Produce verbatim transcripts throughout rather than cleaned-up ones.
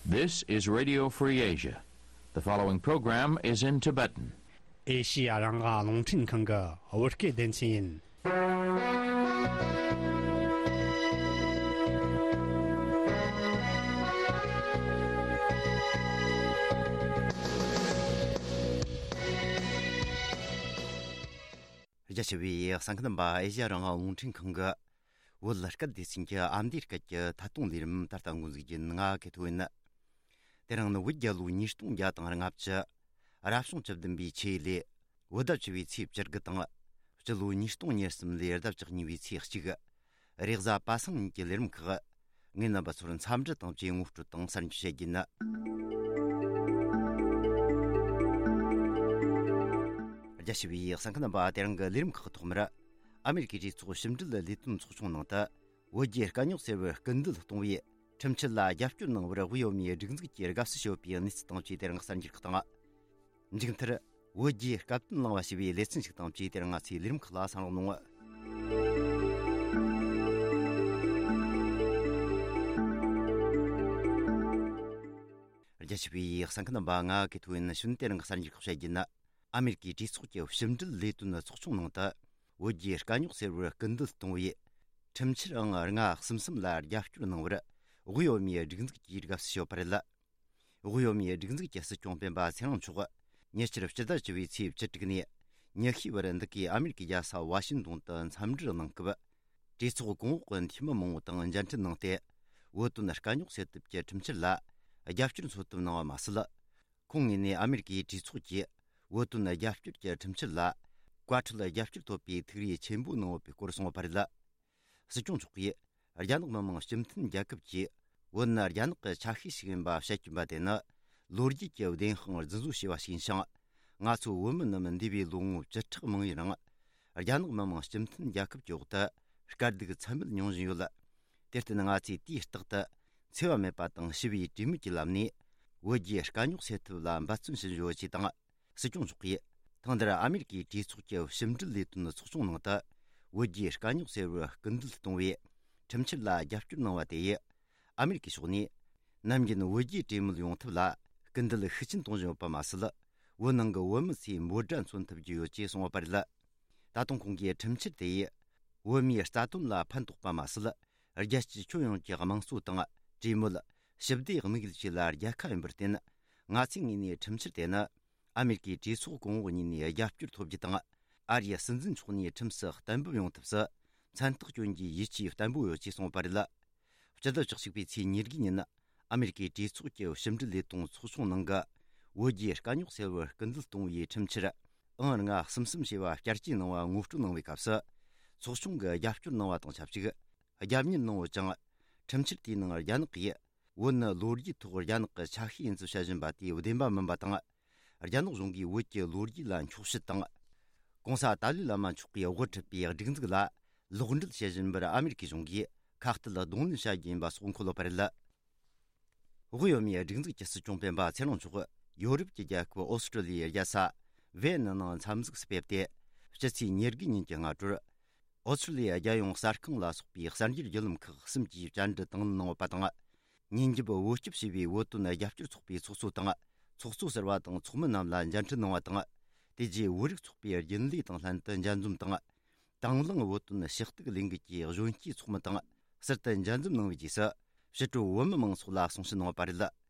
This is Radio Free Asia. The following program is in Tibetan. ཨེ་ཤི་ཡ་རང་དབང་རླུང་འཕྲིན་ཁང་གི་བོད་སྐད་སྡེ་ཚན་ཡིན། རྒྱ་ཆེ་བའི་གསན་མཁན་རྣམ་པ། ཨེ་ཤི་ཡ་རང་དབང་རླུང་འཕྲིན་ཁང་གི་བོད་སྐད་སྡེ་ཚན་གྱི་ཨ་མདོའི་སྐད་ཀྱི་ཐད་གཏོང་ལས་རིམ་ད་ལྟ་འགོ་འཛུགས་རྒྱུ་ཡིན། ང་ཀེ་ཐོ་ཡིན། དེ་རིང་ནི་བོད་རྒྱལ་ལོ་ཉིས་སྟོང་བརྒྱ་དང་ལྔ་བཅུ། རབ་བྱུང་བཅུ་བདུན་པའི་ཆུ་ཡོས་ལོའི་བོད་ཟླ་བཅུ་བའི་ཚེས་བཅུ་དགུ་དང་། སྤྱི་ལོ་ཉིས་སྟོང་ཉེར་གསུམ་ལོའི་ཟླ་བཅུ་གཉིས་པའི་ཚེས་གཅིག་རེས་གཟའ་པ་སངས་ཉིན་གྱི་ལས་རིམ་ཁག་ངས་རྣམ་པ་ཚོར་འཚམས་འདྲི་དང་བཅས་ངོ་སྤྲོད་དང་གསར་འགྱུར་བཤད་རྒྱུ་ཡིན། རྒྱ་ཆེ་བའི་གསན་མཁན་རྣམ་པ། དེ་རིང་གི་ལས་རིམ་ཁག་ཐོག་མར། ཨ་མེ་རི་ཀའི་གྲོས་ཚོགས་ཕྱི་འབྲེལ་ལས་དོན་ཚོགས་ཆུང་ནང་དུ། བོད་རྒྱའི་དཀའ་རྙོག་སེལ་བར་སྐུལ་འདེད་གཏོང་བའི་ཁྲིམས་འཆར་ལ་རྒྱབ་སྐྱོར་གནང་བར་དབུས་བོད་མིའི་སྒྲིག་འཛུགས་ཀྱིས་དགའ་བསུ་ཞུ་བའི་གནས་ཚུལ་དང་བཅས་དེ་རིང་གསར་འགྱུར་ཁག་དང་། མཇུག་མཐར། བོད་རྒྱའི་སྐབས་བསྟུན་གླེང་བ་ཞེས་པའི་ལེ་ཚན་ཞིག་དང་བཅས་དེ་རིང་ང་ཚོའི་ལས་རིམ་ཁག་ལ་གསན་རོགས་གནང་། རྒྱ་ཆེ་བའི་གསན་མཁན་རྣམ་པ། ང་ཀེ་ཐོ་ཡིན། གཞུག་དེ་རིང་གི་གསར་འགྱུར་ཁག་བཤད་རྒྱུ་ཡིན། ཨ་མེ་རི་ཀའི་གྲོས་ཚོགས་ཀྱི་ཕྱི་འབྲེལ་ལས་དོན་ཚོགས་ཆུང་ནང་དུ། བོད་རྒྱའི་དཀའ་རྙོག་སེལ་བར་སྐུལ་འདེད་གཏོང་བའི་ཁྲིམས་འཆར་ཨང་ལྔ་གསུམ་གསུམ་ལ་རྒྱབ་སྐྱོར་གནང་བར་དབུས་བོད་མིའི་སྒྲིག་འཛུགས་ཀྱིས་དགའ་བསུ་ཞུས་པ་རེད། དབུས་བོད་མིའི་སྒྲིག་འཛུགས་ཀྱི་སྲིད་སྐྱོང་སྤེན་པ་ཚེ་རིང་མཆོག་ཉེ་ཆར་ཕྱི་ཟླ་བཅུ་པའི་ཚེས་བཅུ་དྲུག་ནས་ཉི་ཤུའི་བར་འདི་གའི་ཨ་མེ་རི་ཀའི་རྒྱལ་ས་ཝ་ཤིང་ཏོན་དུ་འཚམས་འདྲིར་གནང་སྐབས། གྲོས་ཚོགས་གོང་འོག་གི་འཐུས་མི་མང་པོ་དང་མཇལ་འཕྲད་གནང་སྟེ། བོད་དོན་དཀའ་རྙོག་སེལ་ཐབས་ཀྱི་ཁྲིམས་འཆར་ལ་རྒྱབ་སྐྱོར་འཚོལ་ཐབས་གནང་བ་མ་ཟད། ཁོང་ངོས་ནས་ཨ་མེ་རི་ཀའི་གྲོས་ཚོགས་ཀྱིས་བོད་དོན་རྒྱབ་སྐྱོར་གྱི་ཁྲིམས་འཆར་ལ་བཀའ་ཁྲོལ་རྒྱབ་སྐྱོར་ཐོབ་པའི་ཐུགས་རེ་ཆེན་པོ་གནང་ཡོད་པའི་སྐོར་གསུངས་པ་རེད། སྲིད་སྐྱོང་མཆོག་གིས་རྒྱ་ནག་མི་དམངས་སྤྱི་མཐུན་རྒྱལ་ཁབ་ཀྱིས་བོད་ནི་རྒྱ་ནག་གི་ཆ་ཤས་ཤིག་ཡིན་པ་བཤད་ཀྱིན་པ་དེ་ནི་ལོ་རྒྱུས་ཀྱི་བདེན་དཔང་རྫུན་བཟོ་བྱས་པ་ཞིག་ཡིན་ཞིང་། ང་ཚོ་བོད་མི་རྣམས་འདས་པའི་ལོ་ངོ་བཅུ་ཕྲག་མང་ཡུན་རིང་རྒྱ་ནག་མི་དམངས་སྤྱི་མཐུན་རྒྱལ་ཁབ་ཀྱི་འོག་ཏུ་དཀའ་སྡུག་ཚད་མེད་མྱོང་བཞིན་ཡོད། དེར་བརྟེན་ང་ཚོས་དུས་རྟག་ཏུ་འཚེ་བ་མེད་པ་དང་ཞི་བའི་གྲོས་མོལ་གྱི་ལམ་ནས་བོད་རྒྱའི་དཀའ་རྙོག་སེལ་ཐབས་ལ་འབད་བརྩོན་ཞུ་བཞིན་ཡོད་ཅེས་དང་། སྲིད་སྐྱོང་མཆོག་གིས་ཐེངས་འདིར་ཨ་མེ་རི་ཀའི་གྲོས་ཚོགས་ཀྱི་ཕྱི་འབྲེལ་ལས་དོན་ཚོགས་ཆུང་ནང་དུ་བོད་རྒྱའི་དཀའ་རྙོག་སེལ་བར་སྐུལ་འདེད་གཏོང་བའི་ཁྲིམས་འཆར་ལ་རྒྱབ་སྐྱོར་གནང་བ་དེ་ཡིས། ཨ་མེ་རི་ཀའི་ཕྱོགས་ནས་ནམ་རྒྱུན་བོད་རྒྱའི་གྲོས་མོལ་ཡོང་ཐབས་ལ་སྐུལ་འདེད་ཤུགས་ཆེན་གཏོང་བཞིན་ཡོད་པ་མ་ཟད། བོད་ནང་གི་བོད་མི་ཚོས་འབོད་སྒྲ་མཚོན་ཐུབ་ཀྱི་ཡོད་ཅེས་གསུངས་པ་རེད། ད་དུང་ཁོང་གིས་ཁྲིམས་འཆར་དེ་ཡིས་བོད་མིའི་རྩ་དོན་ལ་ཕན་ཐོགས་པ་མ་ཟད། རྒྱལ་སྤྱིའི་ཁྱོན་ཡོངས་ཀྱི་དམངས་གཙོ་དང་གྲོས་མོལ། ཞི་བདེ་དམིགས་ཡུལ་བཅས་ལ་རྒྱལ་ཁ་ཡིན་པར་བརྟེན། ང་ཚོའི་ངོས་ནས་ཁྲིམས་འཆར་དེ་ནི་ཨ་མེ་རི་ཀའི་གྲོས་ཚོགས་གོང་འོག་གཉིས་ནས་རྒྱབ་སྐྱོར་ཐོབ་རྒྱུ་དང་། ཨ་རིའི་སྲིད་འཛིན་མཆོག་ནས་ཁྲིམས་སུ་གཏན་འབེབས་ཡོང་ཐབས་སུ་མཚན་རྟགས་སྐྱོན་གྱི་ཡིད་ཆེས་བརྟན་པོ་ཡོད་ཅེས་གསུངས་པ་རེད། སྤྱི་ཟླ་བཅུ་གཅིག་པའི་ཚེས་ཉེར་དགུ་ཉིན། ཨ་མེ་རི་ཀའི་གྲོས་ཚོགས་ཀྱི་ཕྱི་འབྲེལ་ལས་དོན་ཚོགས་ཆུང་ནང་གི་བོད་རྒྱའི་དཀའ་རྙོག་སེལ་བར་སྐུལ་འདེད་གཏོང་བའི་ཁྲིམས་འཆར་ཨང་ལྔ་གསུམ་གསུམ་ཞེས་པ་བསྐྱར་བཅོས་གནང་བ་ངོ་སྤྲོད་གནང་བའི་སྐབས་སུ། ཚོགས་ཆུང་གིས་རྒྱབ་སྐྱོར་གནང་བ་དང་ཆབས་ཅིག་རྒྱབ་གཉེར་གནང་ཡོད་ཅིང་། ཁྲིམས་འཆར་དེའི་ནང་རྒྱ་ནག་གིས་བོད་ནི་ལོ་རྒྱུས་ཐོག་རྒྱ་ནག་གི་ཆ་ཤས་ཡིན་ཚུལ་བཤད་བཞིན་པ་དེ་བདེན་པ་མིན་པ་དང་། རྒྱ་ནག་གཞུང་གིས་བོད་ཀྱི་ལོ་རྒྱུས་ལ་འཁྱོག་བཤད་དང་། གོང་ས་ཏཱ་ལའི་བླ་མ་མཆོག་གིས་དབུ་ཁྲིད་པའི་སྒྲིག་འཛུགས་ལ་ལོག་འགྲེལ་བྱེད་བཞིན་པར་ཨ་མེ་རི་ཀའི་གཞུང་གིས་ཁ་གཏད་གདོང་ལེན་བྱ་རྒྱུ་ཡིན་པ་སོགས་འཁོད་ཡོད་པ་རེད། དབུས་བོད་མིའི་སྒྲིག་འཛུགས་ཀྱི་སྲིད་སྐྱོང་སྤེན་པ་ཚེ་རིང་མཆོག་ཡོ་རོབ་ཀྱི་རྒྱལ་ཁབ་ཨོ་སི་ཀྲོ་ལི་ཡའི་རྒྱལ་ས་ཝེ་ནི་ནང་འཚམས་གཟིགས་སུ་ཕེབས་ཏེ། ཕྱི་ཚེས་ཉེར་དགུ་ཉིན་གྱི་སྔ་དྲོར། ཨོ་སི་ཀྲོ་ལི་ཡ་རྒྱལ་ཡོངས་གསར་ཁང་ལ་སོགས་པའི་གསར་འགྱུར་བརྒྱུད་ལམ་ཁག་གསུམ་གྱིས་བཅར་འདྲི་དང་ལེན་གནང་ཡོད་པ་དང་། ཉིན་རྒྱབ་བོད་སྐྱོབ་ཞེས་པའི་བོད་དོན་རྒྱབ་སྐྱོར་ཚོགས་པའི་ཚོགས་གཙོ་དང་། ཚོགས་གཙོ་ཟུར་པ་དང་ཚོགས་མི་རྣམས་ལ་མཇལ་འཕྲད་གནང་བ་དང་། དེ་རྗེས་བོད་རིགས་ཚོགས་པའི་རྒྱུན་ལས་དང་ལྷན་དུ་མཇལ་འཛོམས་དང་། དང་བླངས་བོད་དོན་ཞུ་གཏུག་ལས་འགུལ་གྱི་གཞོན་སྐྱེས་ཚོགས་མི་དང་ཟུར་དུ་མཇལ་འཛོམས་གནང་བའི་རྗེས་སུ། ཕྱི་དྲོ་བོད་མི་མང་ཚོགས་ལ་གསུང་བཤད་གནང་བ་རེད།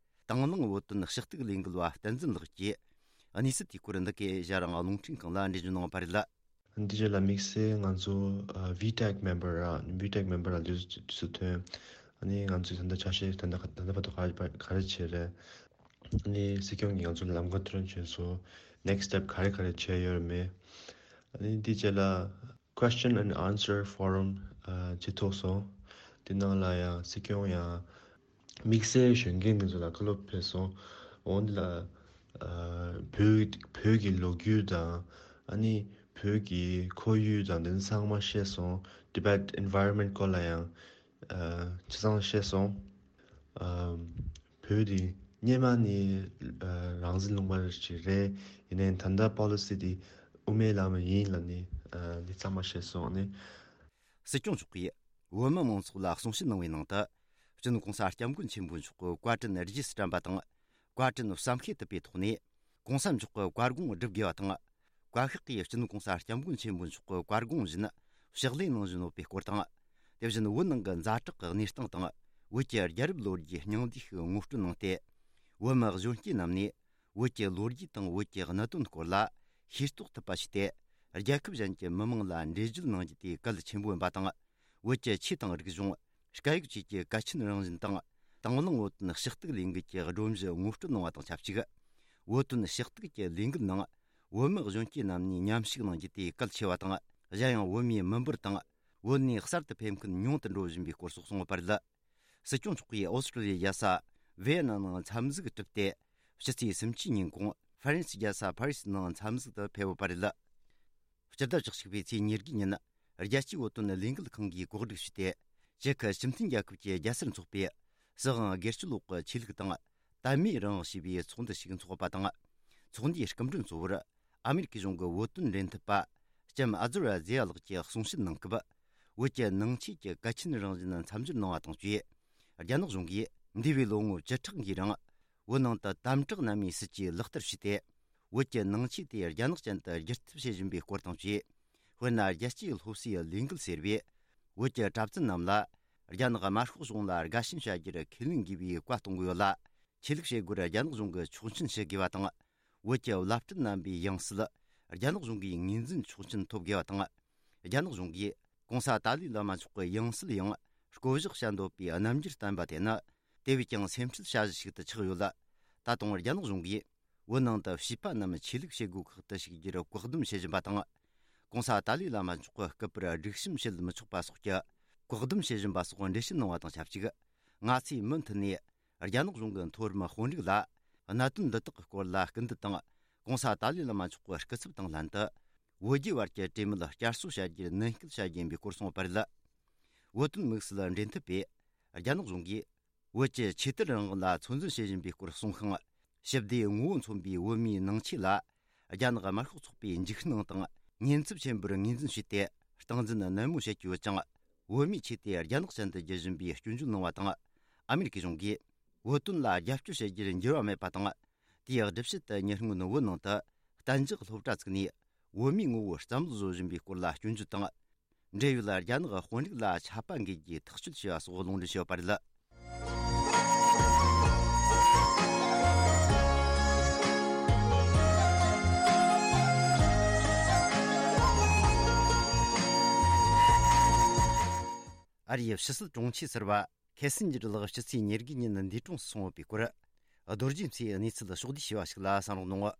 དང་བླངས་བོད་དོན་ཞུ་གཏུག་ལས་འགུལ་བ་བསྟན་འཛིན་ལགས་ཀྱིས་གནས་ཚུལ་དེའི་སྐོར་འདི་གའི་ཨེ་ཤ་ཡ་རང་དབང་རླུང་འཕྲིན་ཁང་ལ་འགྲེལ་བརྗོད་གནང་བ་རེད། འདི་རྗེས་ལ་དམིགས་བསལ་ང་ཚོ་ཨ་ཝི་ཊེག་མེམ་བར་ར་ཝི་ཊེག་མེམ་བར་ར་དུས་སུ་ཐོན། ཨ་ནི་ང་ཚོས་ད་ལྟ་ཆ་ཤས་ད་ལྟ་ད་ལྟ་བར་དུ་ག་རེ་ག་རེ་བྱས་རེད། ཨ་ནི་སྲིད་སྐྱོང་གིས་ང་ཚོ་ལམ་ཁ་ཐོན་བྱས་སོང་། ནེག་སི་ཊེབ་ག་རེ་ག་རེ་བྱས་ཡོད་མེད། ཨ་ནི་འདི་རྗེས་ལ་Question and Answer Forum ཨ་བྱེད་ཐུབ་སོང་། དེ་ནང་ལ་ཡང་སྲིད་སྐྱོང་ཡང་དམིགས་བསལ་གཞོན་སྐྱེས་འདི་ཚོ་ལ་བཀའ་སློབ་ཕེབས་སོང་། འོ་འདི་ལ་ཨ་བོད་བོད་ཀྱི་ལོ་རྒྱུས་དང་ཨ་ནི་བོད་ཀྱི་ཁོར་ཡུག་དང་དེ་ཚོ་ཚང་མ་བཤད་སོང་། Tibet environment སྐོར་ལ་ཡང་ཨ་ཆ་ཚང་བཤད་སོང་། ཨ་བོད་འདི་སྔོན་མ་ནས་ཨ་རང་བཙན་ལུང་པ་ཞིག་རེད། ཡིན་ནའི་ད་ལྟ་པོ་ལི་སི་འདི་དབུ་མའི་ལམ་ཡིན་ལབ་ནས་ཨ་འདི་ཚང་མ་བཤད་སོང་ནས། སྲིད་སྐྱོང་མཆོག་གིས་བོད་མི་མང་ཚོགས་ལ་གསུང་བཤད་གནང་བའི་ནང་དུ། སྤྱི་ནོར་༸གོང་ས་༸སྐྱབས་མགོན་ཆེན་པོ་མཆོག་གི་བཀའ་དྲིན་རྗེས་སུ་དྲན་པ་དང་། བཀའ་དྲིན་བསམ་ཤེས་ཐུབ་པའི་ཐོག་ནས། ༸གོང་ས་མཆོག་གི་བཀའ་དགོངས་སྒྲུབ་དགོས་པ་དང་། བཀའ་ཤག་གིས་སྤྱི་ནོར་༸གོང་ས་༸སྐྱབས་མགོན་ཆེན་པོ་མཆོག་གི་བཀའ་དགོངས་བཞིན་ཕྱག་ལས་གནང་བཞིན་ཡོད་པའི་སྐོར་དང་། དེ་བཞིན་བོད་ནང་གི་ཛ་དྲག་གི་གནས་སྟངས་དང་། བོད་ཀྱི་རྒྱལ་རབས་ལོ་རྒྱུས་སྙིང་བསྡུས་ཤིག་ངོ་སྤྲོད་གནང་སྟེ། བོད་མི་གཞོན་སྐྱེས་རྣམས་ནས་བོད་ཀྱི་ལོ་རྒྱུས་དང་བོད་ཀྱི་གནད་དོན་སྐོར་ལ་ཤེས་རྟོགས་ཐུབ་པ་བྱས་ཏེ། རྒྱལ་ཁབ་གཞན་གྱི་མི་དམངས་ལ་འགྲེལ་བརྗོད་གནང་རྒྱུ་དེ་གལ་ཆེན་པོ་ཡིན་པ་དང་། བོད་ཀྱི་ཆོས་དང་རིག་གཞུང་། སྐད་ཡིག་བཅས་ཀྱི་གལ་ཆེན་རང་བཞིན་དང་། དང་བླངས་བོད་དོན་ཞུ་གཏུག་ལས་འགུལ་གྱི་སྒྲོམ་གཞི་ངོ་སྤྲོད་གནང་བ་དང་ཆབས་ཅིག་བོད་དོན་ཞུ་གཏུག་གི་ལས་འགུལ་ནང་བོད་མི་གཞོན་སྐྱེས་རྣམས་ནས་མཉམ་ཞུགས་གནང་རྒྱུ་དེ་གལ་ཆེ་བ་དང་། གཞན་ཡང་བོད་མིའི་མི་འབོར་དང་བོད་ནས་གསར་དུ་ཕེབས་མཁན་ཉུང་དུ་འགྲོ་བཞིན་པའི་སྐོར་སོགས་གསུངས་པ་རེད། སྲིད་སྐྱོང་མཆོག་གིས་ཨོ་སི་ཀྲོ་ལི་ཡའི་རྒྱལ་ས་ཝེ་ཡེ་ནམ་ནང་འཚམས་གཟིགས་གྲུབ་སྟེ། ཕྱི་ཚེས་སུམ་ཅུ་ཉིན་གུང་ཧྥ་རན་སིའི་རྒྱལ་ས་ཕ་རི་སི་ནང་འཚམས་གཟིགས་དུ་ཕེབས་ཡོད་པ་རེད། སྤྱི་ཟླ་བཅུ་གཅིག་པའི་ཚེས་ཉེར་དགུ་ཉིན། རྒྱལ་སྤྱིའི་བོད་དོན་ལས་འགུལ་ཁང་གིས་གོ་སྒྲིག་ཞུས་ཏེ། ཅེ་ཁི་སྤྱི་མཐུན་རྒྱལ་ཁབ་ཀྱི་རྒྱལ་སར་འཚོགས་པའི་སྲིད་དབང་སྒེར་གཅོད་འོག་གི་ཆོས་ལུགས་དང་དད་མོས་རང་དབང་ཞེས་པའི་ཚོགས་འདུ་ཞིག་འཚོགས་པ་དང་། ཚོགས་འདུའི་སྐུ་མགྲོན་གཙོ་བོར་ཨ་མེ་རི་ཁའི་གཞུང་གི་བོད་དོན་འབྲེལ་མཐུད་པ་ལྕམ་ཨ་ཛོ་ར་ཛེ་ཡ་ལགས་ཀྱིས་གསུང་བཤད་གནང་སྐབས། བོད་ཀྱི་ནང་ཆོས་ཀྱི་གལ་ཆེན་རང་བཞིན་མཚམས་སྦྱོར་གནང་བ་དང་བཅས། རྒྱ་ནག་གཞུང་གིས་འདས་པའི་ལོ་ངོ་བཅུ་ཕྲག་འགའི་རིང་། བོད་ནང་དུ་དམ་དྲག་གནམ་མེད་སྲིད་ཇུས་ལག་བསྟར་བྱས་ཏེ། བོད་ཀྱི་ནང་ཆོས་དེ་རྒྱ་ནག་ཅན་དུ་བསྒྱུར་ཐབས་བྱེད་བཞིན་པའི་སྐོར་དང་བཅས། དཔེར་ན། རྒྱལ་སྤྱིའི་སློབ་གསོའི་ལས་འགུལ་ཟེར་བས། བོད་ཀྱི་གྲྭ་བཙུན་རྣམས་ལ་རྒྱ་ནག་དམར་ཤོག་གཞུང་ལ་དགའ་ཞེན་བྱ་རྒྱུར་ཁས་ལེན་དགོས་པའི་བཀའ་གཏོང་གི་ཡོད་ལ། ཆོས་ལུགས་བྱེད་སྒོར་རྒྱ་ནག་གཞུང་གིས་ཆོག་མཆན་ཞུ་དགོས་པ་དང་། བོད་ཀྱི་བླ་སྤྲུལ་རྣམ་པའི་ཡང་སྲིད་རྒྱ་ནག་གཞུང་གིས་ངོས་འཛིན་ཆོག་མཆན་ཐོབ་དགོས་པ་དང་། རྒྱ་ནག་གཞུང་གིས་༸གོང་ས་ཏཱ་ལའི་བླ་མ་མཆོག་གི་ཡང་སྲིད་ཡང་བསྐོ་གཞག་བྱ་འདོད་པའི་རྣམ་འགྱུར་བསྟན་པ་དེ་ནི། དེ་བས་ཀྱང་སེམས་ཁྲལ་བྱ་གཞི་ཞིག་ཏུ་ཆགས་ཡོད་ལ། ད་དུང་རྒྱ་ནག་གཞུང་གིས་བོད་ནང་དུ་བྱིས་པ་རྣམས་ཆོས་ལུགས་བྱེད་སྒོ་ཁག་ཏུ་ཞུགས་རྒྱུར་བཀག་སྡོམ་བྱེད་བཞིན་པ་དང་། ༸གོང་ས་ཏཱ་ལའི་བླ་མ་མཆོག་གི་སྐུ་པར་སྒྲིག་གཤོམ་བྱེད་མི་ཆོག་པ་སོགས་ཀྱི་བཀག་སྡོམ་བྱེད་བཞིན་པ་སོགས་འགྲེལ་བཤད་གནང་བ་དང་ཆབས་ཅིག་ང་ཚོས་མུ་མཐུད་ནས་རྒྱ་ནག་གཞུང་གི་མཐོ་རིམ་དཔོན་རིགས་ལ་གནད་དོན་འདི་དག་གི་སྐོར་ལ་སྐུལ་འདེད་དང་། ༸གོང་ས་ཏཱ་ལའི་བླ་མ་མཆོག་གི་སྐུ་ཚབ་དང་ལྷན་དུ། བོད་རྒྱའི་བར་གྱི་གྲོས་མོལ་བསྐྱར་གསོ་བྱ་རྒྱུར་ནན་སྐུལ་བྱ་རྒྱུ་ཡིན་པའི་སྐོར་གསུངས་པ་རེད། བོད་དོན་དམིགས་བསལ་འབྲེལ་མཐུད་པས་རྒྱ་ནག་གཞུང་གིས། བོད་ཀྱི་ཆོས་དད་རང་དབང་ལ་ཚོད་འཛིན་བྱེད་བཞིན་པའི་སྐོར་གསུངས་ཤིང་། ཞི་བདེའི་ངོ་བོ་མཚོན་པའི་བོད་མིའི་ནང་ཆོས་ལ། རྒྱ་ནག་དམར་ཤོག་ཚོགས་པས་འཇིགས་སྣང་དང་ཉེན་ཚབས་ཆེན་པོར་ངོས་འཛིན་བྱས་ཏེ། སྟངས་འཛིན་ནན་མོ་བྱེད་ཀྱི་ཡོད་ཅིང་། བོད་མིའི་ཆོས་དེ་རྒྱ་ནག་ཅན་དུ་བསྒྱུར་བཞིན་པའི་སྐྱོན་བརྗོད་གནང་བ་དང་། ཨ་མེ་རི་ཁའི་གཞུང་གིས་བོད་དོན་ལ་རྒྱབ་སྐྱོར་བྱེད་རྒྱུར་འགྱུར་བ་མེད་པ་དང་། དེའི་སྒྲུབ་བྱེད་དུ་ཉེ་སྔོན་བོད་ནང་དུ་གཏན་འཇགས་སློབ་གྲྭ་བཙུགས་ནས། བོད་མིའི་ངོ་བོར་བསམ་བློ་བཟོ་བཞིན་པའི་སྐོར་ལ་སྐྱོན་བརྗོད་དང་། འབྲེལ་ཡོད་རྒྱ་ནག་དཔོན་རིགས་ལ་ཆད་པ་འགེལ་རྒྱུའི་ཐག་གཅོད་བྱས་པ་སོགས་ལུང་འདྲེན་བྱས་ཡོད་པ་རེད། ཨ་རིའི་ཕྱི་སྲིད་དྲུང་ཆེ་ཟུར་པ་ཁེ་སིན་ཇར་ལགས་ཕྱི་ཚེས་ཉེར་དགུ་ཉིན་འདས་གྲོངས་སུ་སོང་ཡོད་པའི་སྐོར། རྡོ་རྗེ་མཚོས་གནས་ཚུལ་ཕྱོགས་བསྡུས་བྱས་པ་ཞིག་ལ་གསན་རོགས་གནང་།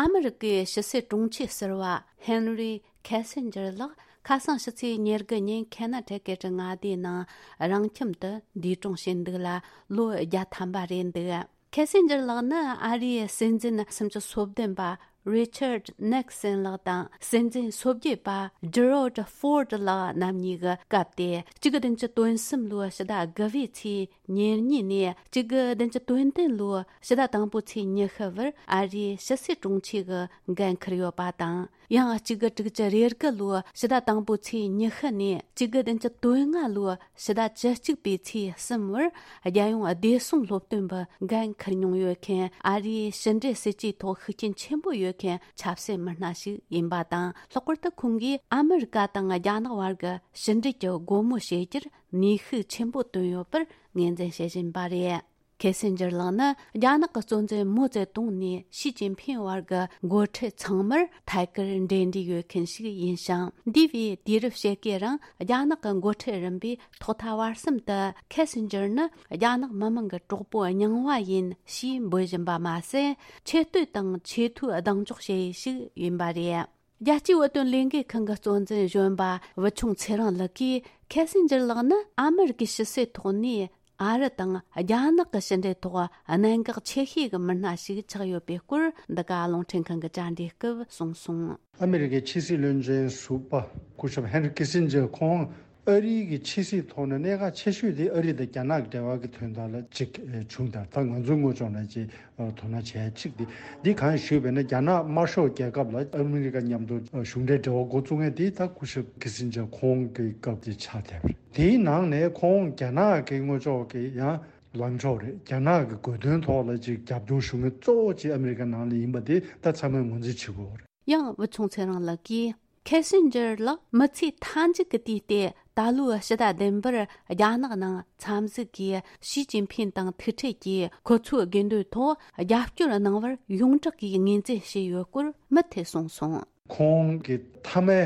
ཨ་མི་རི་ཀའི་ཕྱི་སྲིད་དྲུང་ཆེ་ཟུར་པ་ཧེན་རི་ཁེ་སིན་ཇར་ལགས་ཁ་སང་ཕྱི་ཚེས་ཉེར་དགུ་ཉིན་ཁེ་ན་ཊི་ཀེ་ཊི་མངའ་སྡེའི་ནང་རང་ཁྱིམ་དུ་འདས་གྲོངས་བྱས་འདུག་ལ་ལོ་བརྒྱ་ཐམ་པ་རེད་འདུག་ཁེ་སིན་ཇར་ལགས་ནི་ཨ་རིའི་སྲིད་འཛིན་སུམ་ཅུ་སོ་བདུན་པ་རི་ཆར་ཌི་ནིག་སན་ལགས་དང་སྲིད་འཛིན་སོ་བརྒྱད་པ་ཇི་རོ་ཌི་ཧྥོར་ཌི་ལགས་རྣམ་གཉིས་ཀྱི་སྐབས་ཏེ། གཅིག་དགུ་བདུན་ཅུ་དོན་གསུམ་ལོའི་ཕྱི་ཟླ་དགུ་པའི་ཚེས་ཉེར་གཉིས་ནས་གཅིག་དགུ་བདུན་ཅུ་དོན་བདུན་ལོའི་ཕྱི་ཟླ་དང་པོའི་ཚེས་ཉི་ཤུ་བར་ཨ་རིའི་ཕྱི་སྲིད་དྲུང་ཆེ་གི་འགན་འཁུར་ཡོད་པ་དང་། ཡང་གཅིག་དགུ་དྲུག་ཅུ་རེ་དགུ་ལོའི་ཕྱི་ཟླ་དང་པོའི་ཚེས་ཉི་ཤུ་ནས་གཅིག་དགུ་བདུན་ཅུ་དོན་ལྔ་ལོའི་ཕྱི་ཟླ་བཅུ་གཅིག་པའི་ཚེས་གསུམ་བར་རྒྱལ་ཡོངས་བདེ་སྲུང་སློབ་སྟོན་པའི་འགན་འཁུར་མྱོང་ཡོད་མཁན་ཨ་རིའི་ཕྱི་འབྲེལ་སྲིད་ཇུས་ཐོག་ཤུགས་རྐྱེན་ཆེན་པོ་ཡོད་མཁན་ཆབ་སྲིད་མི་སྣ་ཞིག་ཡིན་པ་དང་། ལྷག་པར་དུ་ཁོང་གིས་ཨ་མི་རི་ཀ་དང་རྒྱ་ནག་བར་གྱི་ཕྱི་འབྲེལ་གྱི་སྒོ་མོ་ཕྱེ་རྒྱུར་ནུས་ཤུགས་ཆེན་པོ་བཏོན་ཡོད་པར་ངོས་འཛིན་བྱེད་བཞིན་པ་རེད། ཁེ་སིན་ཇར་ལགས་ནི་རྒྱ་ནག་གི་གཙོ་འཛིན་མའོ་ཙེ་ཏུང་ནས་ཞི་ཅིན་ཕིང་བར་གྱི་འགོ་ཁྲིད་ཚང་མར་ཐད་ཀར་འབྲེལ་འདྲིས་ཡོད་མཁན་ཞིག་ཡིན་ཞིང་། འདས་པའི་དུས་རབས་ཕྱེད་ཀའི་རིང་རྒྱ་ནག་གི་འགོ་ཁྲིད་རིམ་པས་ཐོག་མཐའ་བར་གསུམ་དུ་ཁེ་སིན་ཇར་ནི་རྒྱ་ནག་མི་དམངས་ཀྱི་གྲོགས་པོ་རྙིང་བ་ཡིན་ཞེས་འབོད་བཞིན་པ་མ་ཟད། ཆེ་བསྟོད་དང་ཆེས་མཐོའི་གདེང་འཇོག་བྱེད་ཡུལ་ཞིག་ཡིན་པ་རེད། རྒྱལ་སྤྱིའི་བོད་དོན་ལས་འགུལ་ཁང་གི་གཙོ་འཛིན་གཞོན་པ་བུ་ཆུང་ཚེ་རིང་ལགས་ཀྱིས། ཁེ་སིན་ཇར་ལགས་ནི་ཨ་མི་རི་ཀའི་ཕྱི་སྲིད་ཐོག་ནས་ཨ་རི་དང་རྒྱ་ནག་གི་ཕྱི་འབྲེལ་ཐོག་གནད་འགག་ཆེ་ཤོས་ཀྱི་མི་སྣ་ཞིག་ཆགས་ཡོད་པའི་སྐོར། འདི་ག་རླུང་འཕྲིན་ཁང་གི་བཅར་འདྲིའི་སྐབས་གསུངས་སོང་། ཨ་མི་རི་ཀའི་ཕྱི་སྲིད་བློན་ཆེན་ཟུར་པ་སྐུ་ཞབས་ཧེན་རི་ཁི་སིན་ཇར་ཁོང་ ཨ་རིའི་གི་ཕྱི་སྲིད་ཐོག་ནས་གནད་འགག་ཆེ་ཤོས་དེ་ཨ་རི་དང་རྒྱ་ནག་གི་འབྲེལ་བ་གི་དོན་དག་ལ་ཅིག་ཨེ་བྱུང་དང་། ད་ང་ཚོའི་ངོས་ཕྱོགས་ནས་ཅིག་ཨ་དོ་སྣང་བྱས་ཅིག་དེ་འདི་གང་ཞུས་པས་ན། རྒྱ་ནག་དམར་ཤོག་རྒྱལ་ཁབ་ལ་ཨ་མི་རི་ཀ་མཉམ་དུ་ཨ་གཞུང་འབྲེལ་འབྲེལ་བ་འགོ་བཙུགས་མཁན་དེ་ད་སྐུ་ཞབས་ཁི་སིན་ཇར་ཁོང་གི་སྐབས་དེ་ཆགས་བསྡད་པ་རེད། དེའི་ནང་ནས་ཁོང་རྒྱ་ནག་གི་ངོས་ཕྱོགས་ཀྱི་ཡང་ལངས་ཕྱོགས་རེད། རྒྱ་ནག་གི་དགོས་དོན་ཐོག་ལ་ཅིག་རྒྱབ་སྐྱོར་ཞུ་མཁན་གཙོ་བོ་ཅིག་ཨ་མི་རི་ཀ་ནང་ལ་ཡིན་པ་དེ་ད་ཚང་མས་ངོས་འཛིན་བྱེད་དགོས་པ་རེད། ཡང་བུ་ཆུང་ཚེ་རིང་ལགས་ཀྱིས། ཁེ་སིན་ཇར་ལགས་མི་ཚེ་མཐའ་མཇུག་གི་དུས་ཏེ་ད་ལོའི་ཕྱི་ཟླ་བདུན་པར་རྒྱ་ནག་ནང་འཚམས་གཟིགས་ཀྱིས་ཞི་ཅིན་ཕིན་དང་ཐུག་འཕྲད་ཀྱིས་ཁོ་ཚོའི་དགོས་འདུན་ཐོག་རྒྱབ་སྐྱོར་གནང་བར་ཡོངས་གྲགས་ཀྱིས་ངོས་འཛིན་བྱས་ཡོད་སྐོར་མུ་མཐུད་གསུངས་སོང་། ཁོང་གི་མཐའ་མའི་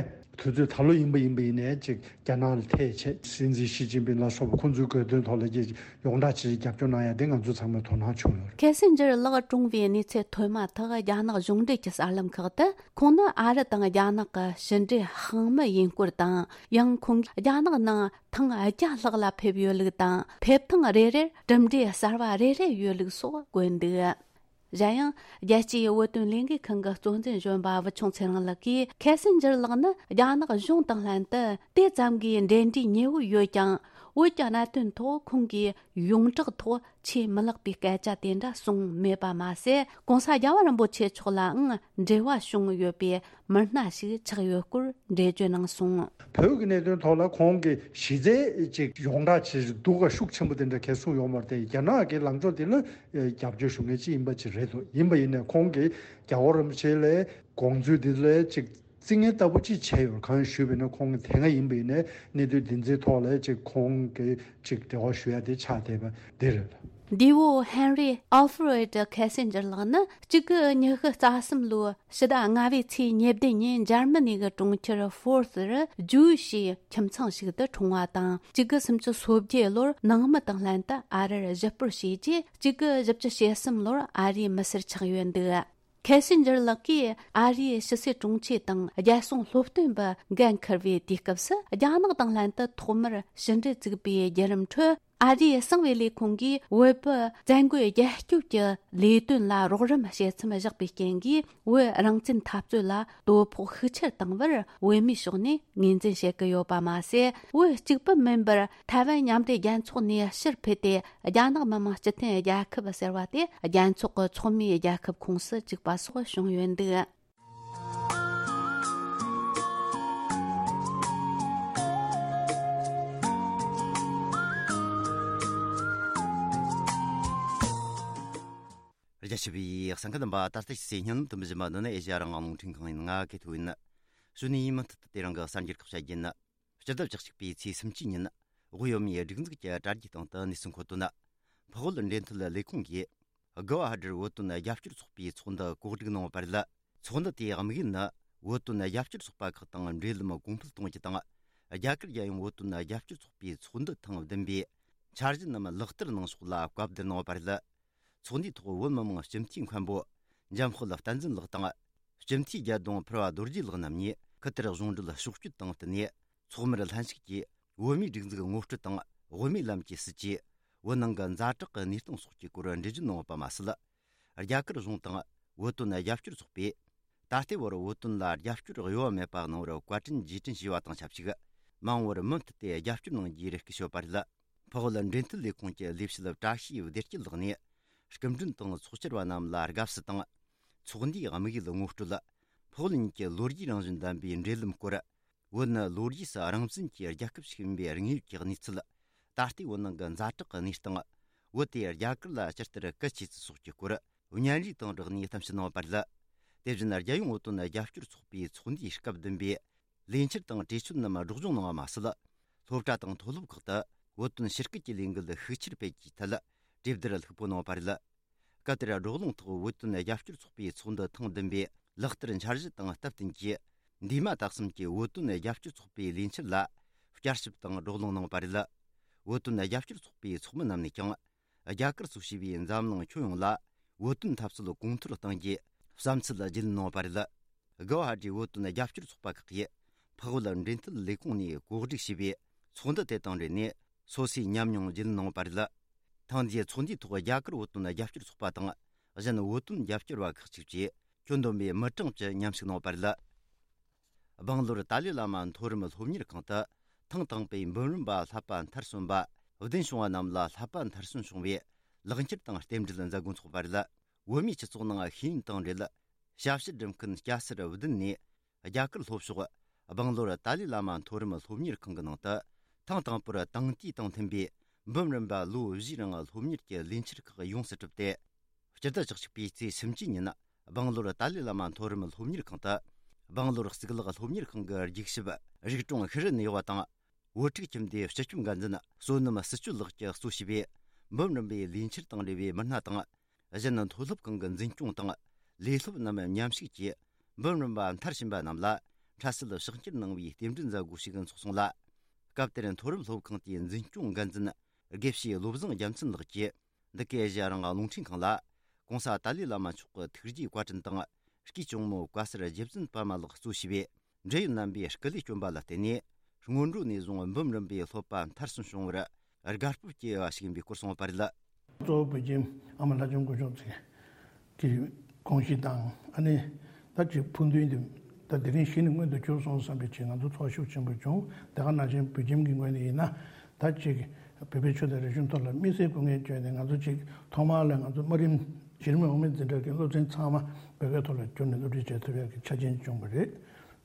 དུས་ཚོད་ད་ལོ་ཡིན་པ་ཡིན་པ་ཡིན་ནའི་ཅིག་རྒྱ་ནག་ལ་ཐད་བྱས། སྲིད་འཛིན་ཞི་ཅིན་ཕིན་ལ་སོགས་པ་ཁོང་ཚོའི་དགོས་དོན་ཐོག་ལ་ཅིག་ཡོངས་གྲགས་ཆེ་རྒྱབ་སྐྱོར་གནང་ཡ་དེ་ང་ཚོ་ཚང་མས་དོ་སྣང་བྱུང་ཡོད་རེད། ཁེ་སིན་ཇར་ལགས་གྲོངས་པའི་གནས་ཚུལ་ཐོན་མ་ཐག་རྒྱ་ནག་གཞུང་འབྲེལ་གྱི་གསར་ལམ་ཁག་ཏུ་ཁོང་ནི་ཨ་རི་དང་རྒྱ་ནག་གི་ཕྱི་འབྲེལ་དཔང་མི་ཡིན་སྐོར་དང་། ཡང་ཁོང་གིས་རྒྱ་ནག་ནང་ཐེངས་བརྒྱ་ལྷག་ལ་ཕེབས་ཡོད་ལུགས་དང་། ཕེབས་ཐེངས་རེ་རེར་གྲུབ་འབྲས་གསར་བ་རེ་རེ་ཡོད་ལུགས་སོགས་བཀོད་འདུག་གཞན་ཡང་། རྒྱལ་སྤྱིའི་བོད་དོན་ལས་འགུལ་ཁང་གི་གཙོ་འཛིན་གཞོན་པ་བུ་ཆུང་ཚེ་རིང་ལགས་ཀྱིས། ཁེ་སིན་ཇར་ལགས་ནི་རྒྱ་ནག་གཞུང་དང་ལྷན་དུ་དེ་ཙམ་གྱི་འབྲེལ་འདྲིས་ཉེ་བོ་ཡོད་ཀྱང་། བོད་ཀྱི་གནད་དོན་ཐོག་ཁོང་གིས་ཡོངས་གྲགས་ཐོག་ཆེས་མི་ལེགས་པའི་སྐད་ཆ་དེ་འདྲ་གསུངས་མེད་པ་མ་ཟད། ༸གོང་ས་རྒྱལ་བ་རིན་པོ་ཆེ་མཆོག་ལའང་འབྲེལ་བ་བྱུང་ཡོད་པའི་མི་སྣ་ཞིག་ཆགས་ཡོད་སྐོར་འགྲེལ་བརྗོད་གནང་སོང་། བོད་ཀྱི་གནད་དོན་ཐོག་ལ་ཁོང་གི་གཞི་རྩའི་ཅིག་ཡོངས་གྲགས་ཆེ་ཞིག་འདུག་ག་ཤུགས་ཆེན་པོ་དེ་འདྲ་གང་གསུངས་ཡོད་མ་རེད་དེ། རྒྱ་ནག་གི་ལངས་ཕྱོགས་དེ་ལ་རྒྱབ་སྐྱོར་ཞུ་མཁན་ཅིག་ཡིན་པ་ཅིག་རེད་འདུག་ཡིན་པ་ཡིན་ནའི་ཁོང་གིས་རྒྱལ་བ་རིན་པོ་ཆེ་ལ་དགོངས་ཚུལ་དེ་ལ་ཅིག་རྩིས་ངན་ལྟ་བུ་ཅིག་བྱས་ཡོད། གང་ཞུས་པ་ཡིན་ན། ཁོང་གི་དེ་སྔ་ཡིན་པ་ཡིན་ནའི་གནད་དོན་འདི་ཚོའི་ཐོག་ལ་ཅིག་ཁོང་གིས་ཅིག་འབྲེལ་བ་ཞུ་ཡ་དེ་ཆགས་བསྡད་པ་འདི་རེད། འདས་པོ་ཧེན་རི་ཨལ་ཧྥི་རེད་ཁེ་སིན་ཇར་ལགས་ནི་གཅིག་དགུ་ཉི་ཤུ་རྩ་གསུམ་ལོའི་ཕྱི་ཟླ་ལྔ་པའི་ཚེས་ཉེར་བདུན་ཉིན་འཇར་མ་ནི་གི་གྲོང་ཁྱེར་ཧྥོར་ཙེར་ཇུའུ་ཤི་ཁྱིམ་ཚང་ཞིག་ཏུ་འཁྲུངས་པ་དང་། གཅིག་དགུ་སུམ་ཅུ་སོ་བརྒྱད་ལོར་ནང་མི་དང་ལྷན་དུ་ཨ་རིར་གཞིས་སྤོར་བྱས་རྗེས། གཅིག་དགུ་བཞི་བཅུ་ཞེ་གསུམ་ལོར་ཨ་རིའི་མི་སེར་ཆགས་ཡོད་འདུག་ཁེ་སིན་ཇར་ལགས་ཀྱིས་ཨ་རིའི་ཕྱི་སྲིད་དྲུང་ཆེ་དང་རྒྱལ་སྲུང་སློབ་སྟོན་པ་འགན་འཁུར་བའི་དུས་སྐབས་སུ། རྒྱ་ནག་དང་ལྷན་དུ་ཐོག་མར་ཕྱི་འབྲེལ་བཙུགས་པའི་བརྒྱུད་རིམ་ཁྲོད། ཨ་རིའི་གསང་བའི་ལས་ཁུངས་ཀྱིས་བོད་པའི་བཙན་རྒོལ་རྒྱལ་སྐྱོབ་ཀྱི་ལས་དོན་ལ་རོགས་རམ་བྱེད་མཚམས་བཞག་པའི་རྐྱེན་གྱིས། བོད་རང་བཙན་འཐབ་རྩོད་ལ་དོ་ཕོག་ཤུགས་ཆེར་བཏང་བར་བོད་མིའི་ཕྱོགས་ནས་ངོས་འཛིན་བྱེད་ཀྱི་ཡོད་པ་མ་ཟད། བོད་གཅིག་པུ་མིན་པར་ཐའེ་ཝན་མཉམ་འབྲེལ་རྒྱལ་ཚོགས་ནས་ཕྱིར་ཕུད་དེ། རྒྱ་ནག་མི་དམངས་སྤྱི་མཐུན་རྒྱལ་ཁབ་ཟེར་བ་དེ་རྒྱལ་ཚོགས་ཀྱི་ཚོགས་མིའི་རྒྱལ་ཁབ་ཁོངས་སུ་བཅུག་པ་སོགས་བྱུང་ཡོད་འདུག་རྒྱ་ཆེ་བའི་གསན་མཁན་རྣམ་པ། ད་ལྟ་ཕྱི་སའི་ཉིན་དུ་མི་བཞིན་པ་འདི་ནི་ཨེ་ཤ་ཡ་རང་དབང་རླུང་འཕྲིན་ཁང་ཡིན། ང་གི་ཐོ་ཡིན། གཞོན་ནུ་ཡིན་མུ་མཐུད་དུ་དེ་རིང་གི་གསར་འགྱུར་ཁག་བཤད་རྒྱུ་ཡིན། སྤྱི་ཟླ་བཅུ་གཅིག་པའི་ཚེས་སུམ་ཅུ་ཉིན། དབུས་བོད་མིའི་སྒྲིག་འཛུགས་ཀྱི་དྲ་རྒྱའི་སྟེང་དུ་གནས་ཚུལ་འཁོད་དོན། འཕགས་བོད་འབྲེལ་མཐུད་ལས་ཁུངས་ཀྱིས། གུ་ཝ་ཧ་ཏིར་བོད་དོན་རྒྱབ་སྐྱོར་ཚོགས་པའི་ཚོགས་འདུ་གོ་སྒྲིག་གནང་བ་རེད། ཚོགས་འདུ་དེའི་དམིགས་ཡུལ་ནི། བོད་དོན་རྒྱབ་སྐྱོར་ཚོགས་པ་ཁག་དང་འབྲེལ་ལམ་གོང་འཕེལ་གཏོང་རྒྱུ་དང་། རྒྱ་གར་རྒྱལ་ཡོངས་བོད་དོན་རྒྱབ་སྐྱོར་ཚོགས་པའི་ཚོགས་འདུ་ཐེངས་བདུན་པའི་འཆར་གཞི་རྣམས་ལག་བསྟར་གནང་ཕྱོགས་ལ་བཀའ་བསྡུར་གནང་བ་རེད། ཚོགས་འདུའི་ཐོག་བོད་མི་མང་སྤྱི་འཐུས་མཁན་པོ་འཇམ་དཔལ་བསྟན་འཛིན་ལགས་དང་། སྤྱི་འཐུས་རྒྱལ་ལྡོང་ཕུར་བ་རྡོ་རྗེ་ལགས་རྣམ་གཉིས་ཁུ་ཐུར་གཞུང་འབྲེལ་ཕྱོགས་བསྐྱོད་དང་བསྟུན་ནས། ཚོགས་མིར་ལྷན་ཞུགས་ཀྱིས་བོད་མིའི་སྒྲིག་འཛུགས་ངོ་སྤྲོད་དང་། དབུ་མའི་ལམ་གྱི་སྲིད་བྱུས། བོད་ནང་གི་ཛ་དྲག་གི་གནས་སྟངས་སོགས་ཀྱི་སྐོར་འགྲེལ་བརྗོད་གནང་བ་མ་ཟད། རྒྱ་གར་གཞུང་དང་བོད་དོན་རྒྱབ་སྐྱོར་ཚོགས་པས། ད་ལྟའི་བར་བོད་དོན་ལ་རྒྱབ་སྐྱོར་གཡོ་བ་མེད་པ་གནང་བར་བཀའ་དྲིན་རྗེས་དྲན་ཞུས་པ་དང་ཆབས་ཅིག། མ་འོངས་པར་མུ་མཐུད་དེ་རྒྱབ་སྐྱོར་གནང་རྒྱུའི་རེ་སྐུལ་ཞུས་པ་རེད། འཕགས་བོད་འབྲེལ་མཐུད་ལས་ཁུངས་ཀྱི་ལས་བྱེད་བཀྲ་ཤིས་བདེ་སྐྱིད་ལགས་ནས། སྐུ་མགྲོན་དང་ཚོགས་བཅར་བ་རྣམས་ལ་དགའ་བསུ་དང་། ཚོགས་འདུའི་དམིགས་ཡུལ་ངོ་སྤྲོད། འཕགས་བོད་གཉིས་ཀྱི་ལོ་རྒྱུས་རང་བཞིན་ལྡན་པའི་འབྲེལ་ལམ་སྐོར། བོད་ནི་ལོ་རྒྱུས་སུ་རང་བཙན་གྱི་རྒྱལ་ཁབ་ཞིག་ཡིན་པའི་དངོས་ཡོད་ཀྱི་གནས་ཚུལ། ད་ལྟའི་བོད་ནང་གི་ཛ་དྲག་གི་གནས་སྟངས། བོད་དེ་རྒྱ་གར་ལ་ཇི་ལྟར་གལ་ཆེ་ཚུལ་སོགས་ཀྱི་སྐོར། བརྙན་རིས་དང་སྦྲགས་ནས་གཏམ་བཤད་གནང་བ་རེད། དེ་བཞིན་རྒྱལ་ཡོངས་བོད་དོན་རྒྱབ་སྐྱོར་ཚོགས་པའི་ཚོགས་འདུའི་སྐབས་བདུན་པའི་ལས་འཆར་དང་གྲོས་ཆོད་རྣམས་སྒྲོག་སྦྱང་གནང་བ་མ་ཟད། སློབ་གྲྭ་དང་མཐོ་སློབ་ཁག་ཏུ་བོད་དོན་ཕྱི་སྐད་ཀྱི་ལས་འགུལ་ཤུགས་ཆེར་སྤེལ་རྒྱུའི་ཐད་གྲོས་བསྡུར་ལྷུག་པོ་གནང་བ་རེད། སྐབས་དེར་བགྲོ་གླེང་ཐོག་བོད་དོན་རྒྱབ་སྐྱོར་ཚོགས་པའི་ཚོགས་འདུ་ཐེངས་བདུན་པའི་ལག་བསྟར་འཆར་གཞི་དང་སྟབས་བསྟུན་གྱིས། འདས་མ་ད་གསུམ་གྱི་བོད་དོན་རྒྱབ་སྐྱོར་ཚོགས་པའི་ལས་འཆར་ལ་བསྐྱར་ཞིབ་དང་བགྲོ་གླེང་གནང་བ་རེད། བོད་དོན་རྒྱབ་སྐྱོར་ཚོགས་པའི་ཚོགས་མི་རྣམས་ནས་ཀྱང་། རྒྱ་གར་སོགས་བྱས་པའི་འཛམ་གླིང་ཁྱོན་ཡོངས་ལ་བོད་དོན་འཐབ་རྩོད་གོང་མཐོར་གཏང་རྒྱུའི་བསམ་ཚུལ་རྒྱུས་ལོན་གནང་བ་རེད། གུ་ཝ་ཧ་ཏིའི་བོད་དོན་རྒྱབ་སྐྱོར་ཚོགས་པ་ཁག་གིས་འཕགས་བོད་འབྲེལ་མཐུད་ལས་ཁུངས་ནས་གོ་སྒྲིག་བྱས་པའི་ཚོགས་འདུ་དེ་དང་འབྲེལ་ནས་སོ་སོའི་ཉམས་མྱོང་རྒྱུས་ལོན་གནང་བ་རེད། ཐེངས་འདིའི་ཚོགས་འདུའི་ཐོག་རྒྱ་གར་བོད་དོན་རྒྱབ་སྐྱོར་ཚོགས་པ་དང་། གཞན་བོད་དོན་རྒྱབ་སྐྱོར་བ་ཁག་ཅིག་བཅས་ཁྱོན་བསྡོམས་པའི་མི་གྲངས་བཅུ་མཉམ་ཞུགས་གནང་བ་རེད། སྦང་ལོར་ཏཱ་ལའི་བླ་མ་མཐོ་རིམ་སློབ་གཉེར་ཁང་དུ་ ཐེངས་དང་པོའི་འབུམ་རམས་པ་བསླབ་པ་མཐར་སོན་པ་བདུན་བྱུང་བ་རྣམས་ལ་བསླབ་པ་མཐར་སོན་བྱུང་བའི་ལེགས་འཁྱེར་དང་རྟེན་འབྲེལ་མཛད་སྒོ་འཚོགས་པ་རེད། བོད་མིའི་སྤྱི་ཚོགས་ནང་ཤེས་ཡོན་དང་འབྲེལ་ཞབས་ཕྱི་སྒྲུབ་མཁན་སྐྱ་སེར་བདུན་ནས་རྒྱ་གར་ལྷོ་ཕྱོགས་སྦང་ལོར་ཏཱ་ལའི་བླ་མ་མཐོ་རིམ་སློབ་གཉེར་ཁང་གི་ནང་དུ་ཐེངས་དང་པོར་དེང་དུས་དང་མཐུན་པའི་འབུམ་རམས་པ་ལོ་བཞིའི་རིང་སློབ་གཉེར་གྱི་ལས་འཆར་ཁག་ཡོངས་སུ་གྲུབ་སྟེ། སྤྱི་ཟླ་བཅུ་གཅིག་པའི་ཚེས་སུམ་ཅུ་ཉིན་སྦང་ལོར་ཏཱ་ལའི་བླ་མ་མཐོ་རིམ་སློབ་གཉེར་ཁང་དུ་སྦང་ལོར་གཙུག་ལག་སློབ་གཉེར་ཁང་གི་རྒྱུགས་ཞིབ་རིག་གྲོང་ཤི་རི་ནས་ཡོད་པ་དང་། བོད་ཕྲུག་ཁྱིམ་སྡེའི་སྤྱི་ཁྱབ་འགན་འཛིན་བསོད་ནམས་བརྩི་སྤྱོད་ལགས་ཀྱིས་གཙོ་བྱས་པའི་འབུམ་རམས་པའི་ལས་འཆར་དང་འབྲེལ་བའི་མི་སྣ་དང་། གཞན་མཐོ་སློབ་ཁང་གི་འཛིན་སྐྱོང་དང་ལས་སློབ་རྣམས་མཉམ་ཞུགས་ཀྱིས་འབུམ་རམས་པ་མཐར་ཕྱིན་པ་རྣམས་ལ་འཕྲལ་སེལ་ཕྱག་འཁྱེར་གནང་བའི་རྟེན་འབྲེལ་མཛད་སྒོ་ཞིག་འཚོགས་སོང་ལ། སྐབས་དེར་མཐོ་རིམ་སློབ་ཁང་དེའི་འཛིན་སྐྱོང་འགན་འཛིན་དགེ་བཤེས་བློ་བཟང་རྒྱལ་མཚན་ལགས་ཀྱིས། འདི་གའི་གཞི་རང་རླུང་འཕྲིན་ཁང་ལ་༸གོང་ས་ཏཱ་ལའི་བླ་མ་མཆོག་གི་ཐུགས་རྗེའི་བཀའ་དྲིན་དང་། སྐུའི་གཅུང་མོ་བཀའ་གསར་རྗེ་བཙུན་པདྨ་ལགས་གཙོ་བྱས་པའི་འབྲེལ་ཡོད་རྣམ་པས་སྐུ་ལས་བསྐྱོན་པ་ལ་བརྟེན་ནས། སྔོན་འགྲོ་ནས་བཟུང་འབུམ་རམས་པའི་སློབ་པ་མཐར་སོན་བྱུང་བར་དགའ་སྤོབས་སྐྱེ་བ་ཞིག་ཡིན་པའི་སྐོར་གསུངས་པ་རེད། གཙོ་བོ་བོད་ཁྱིམ་ཨ་མ་ལྷ་ལྕམ་སྐུ་ཞབས་ཀྱི་དགོངས་གཞི་དང་། ཨ་ནི་ད་ཅིག་ཕུགས་འདུན་དེ་ད་དེ་རིང་གཞི་ནས་མངོན་དུ་གྱུར་སོང་བསམ་པའི་ཆེད་ང་ཚོ་ཚོར་ཤུགས་ཆེན་པོ་བྱུང་། དེ་ག་ནང་བཞིན་བོད་ཁྱིམ་གྱི་ངོས་ནས་ཡིན་ན། ད་ཅིག་བོད་པའི་ཆོས་དང་རིག་གཞུང་ཐོག་ལ་དམིགས་བསལ་སྐུ་ངལ་བསྐྱོན་ནས། ང་ཚོ་ཅིག་ཐོག་མར་ལ་ང་ཚོ་དམའ་རིམ་གཞི་རིམ་འོག་མའི་འཛིན་གྲྭ་གི་སློབ་ཚན་ཚང་མ་བོད་སྐད་ཐོག་ལ་བསྒྱུར་ནས་སློབ་ཁྲིད་བྱེད་ཐུབ་ཡག་གི་ཆ་རྐྱེན་བྱུང་བ་རེད།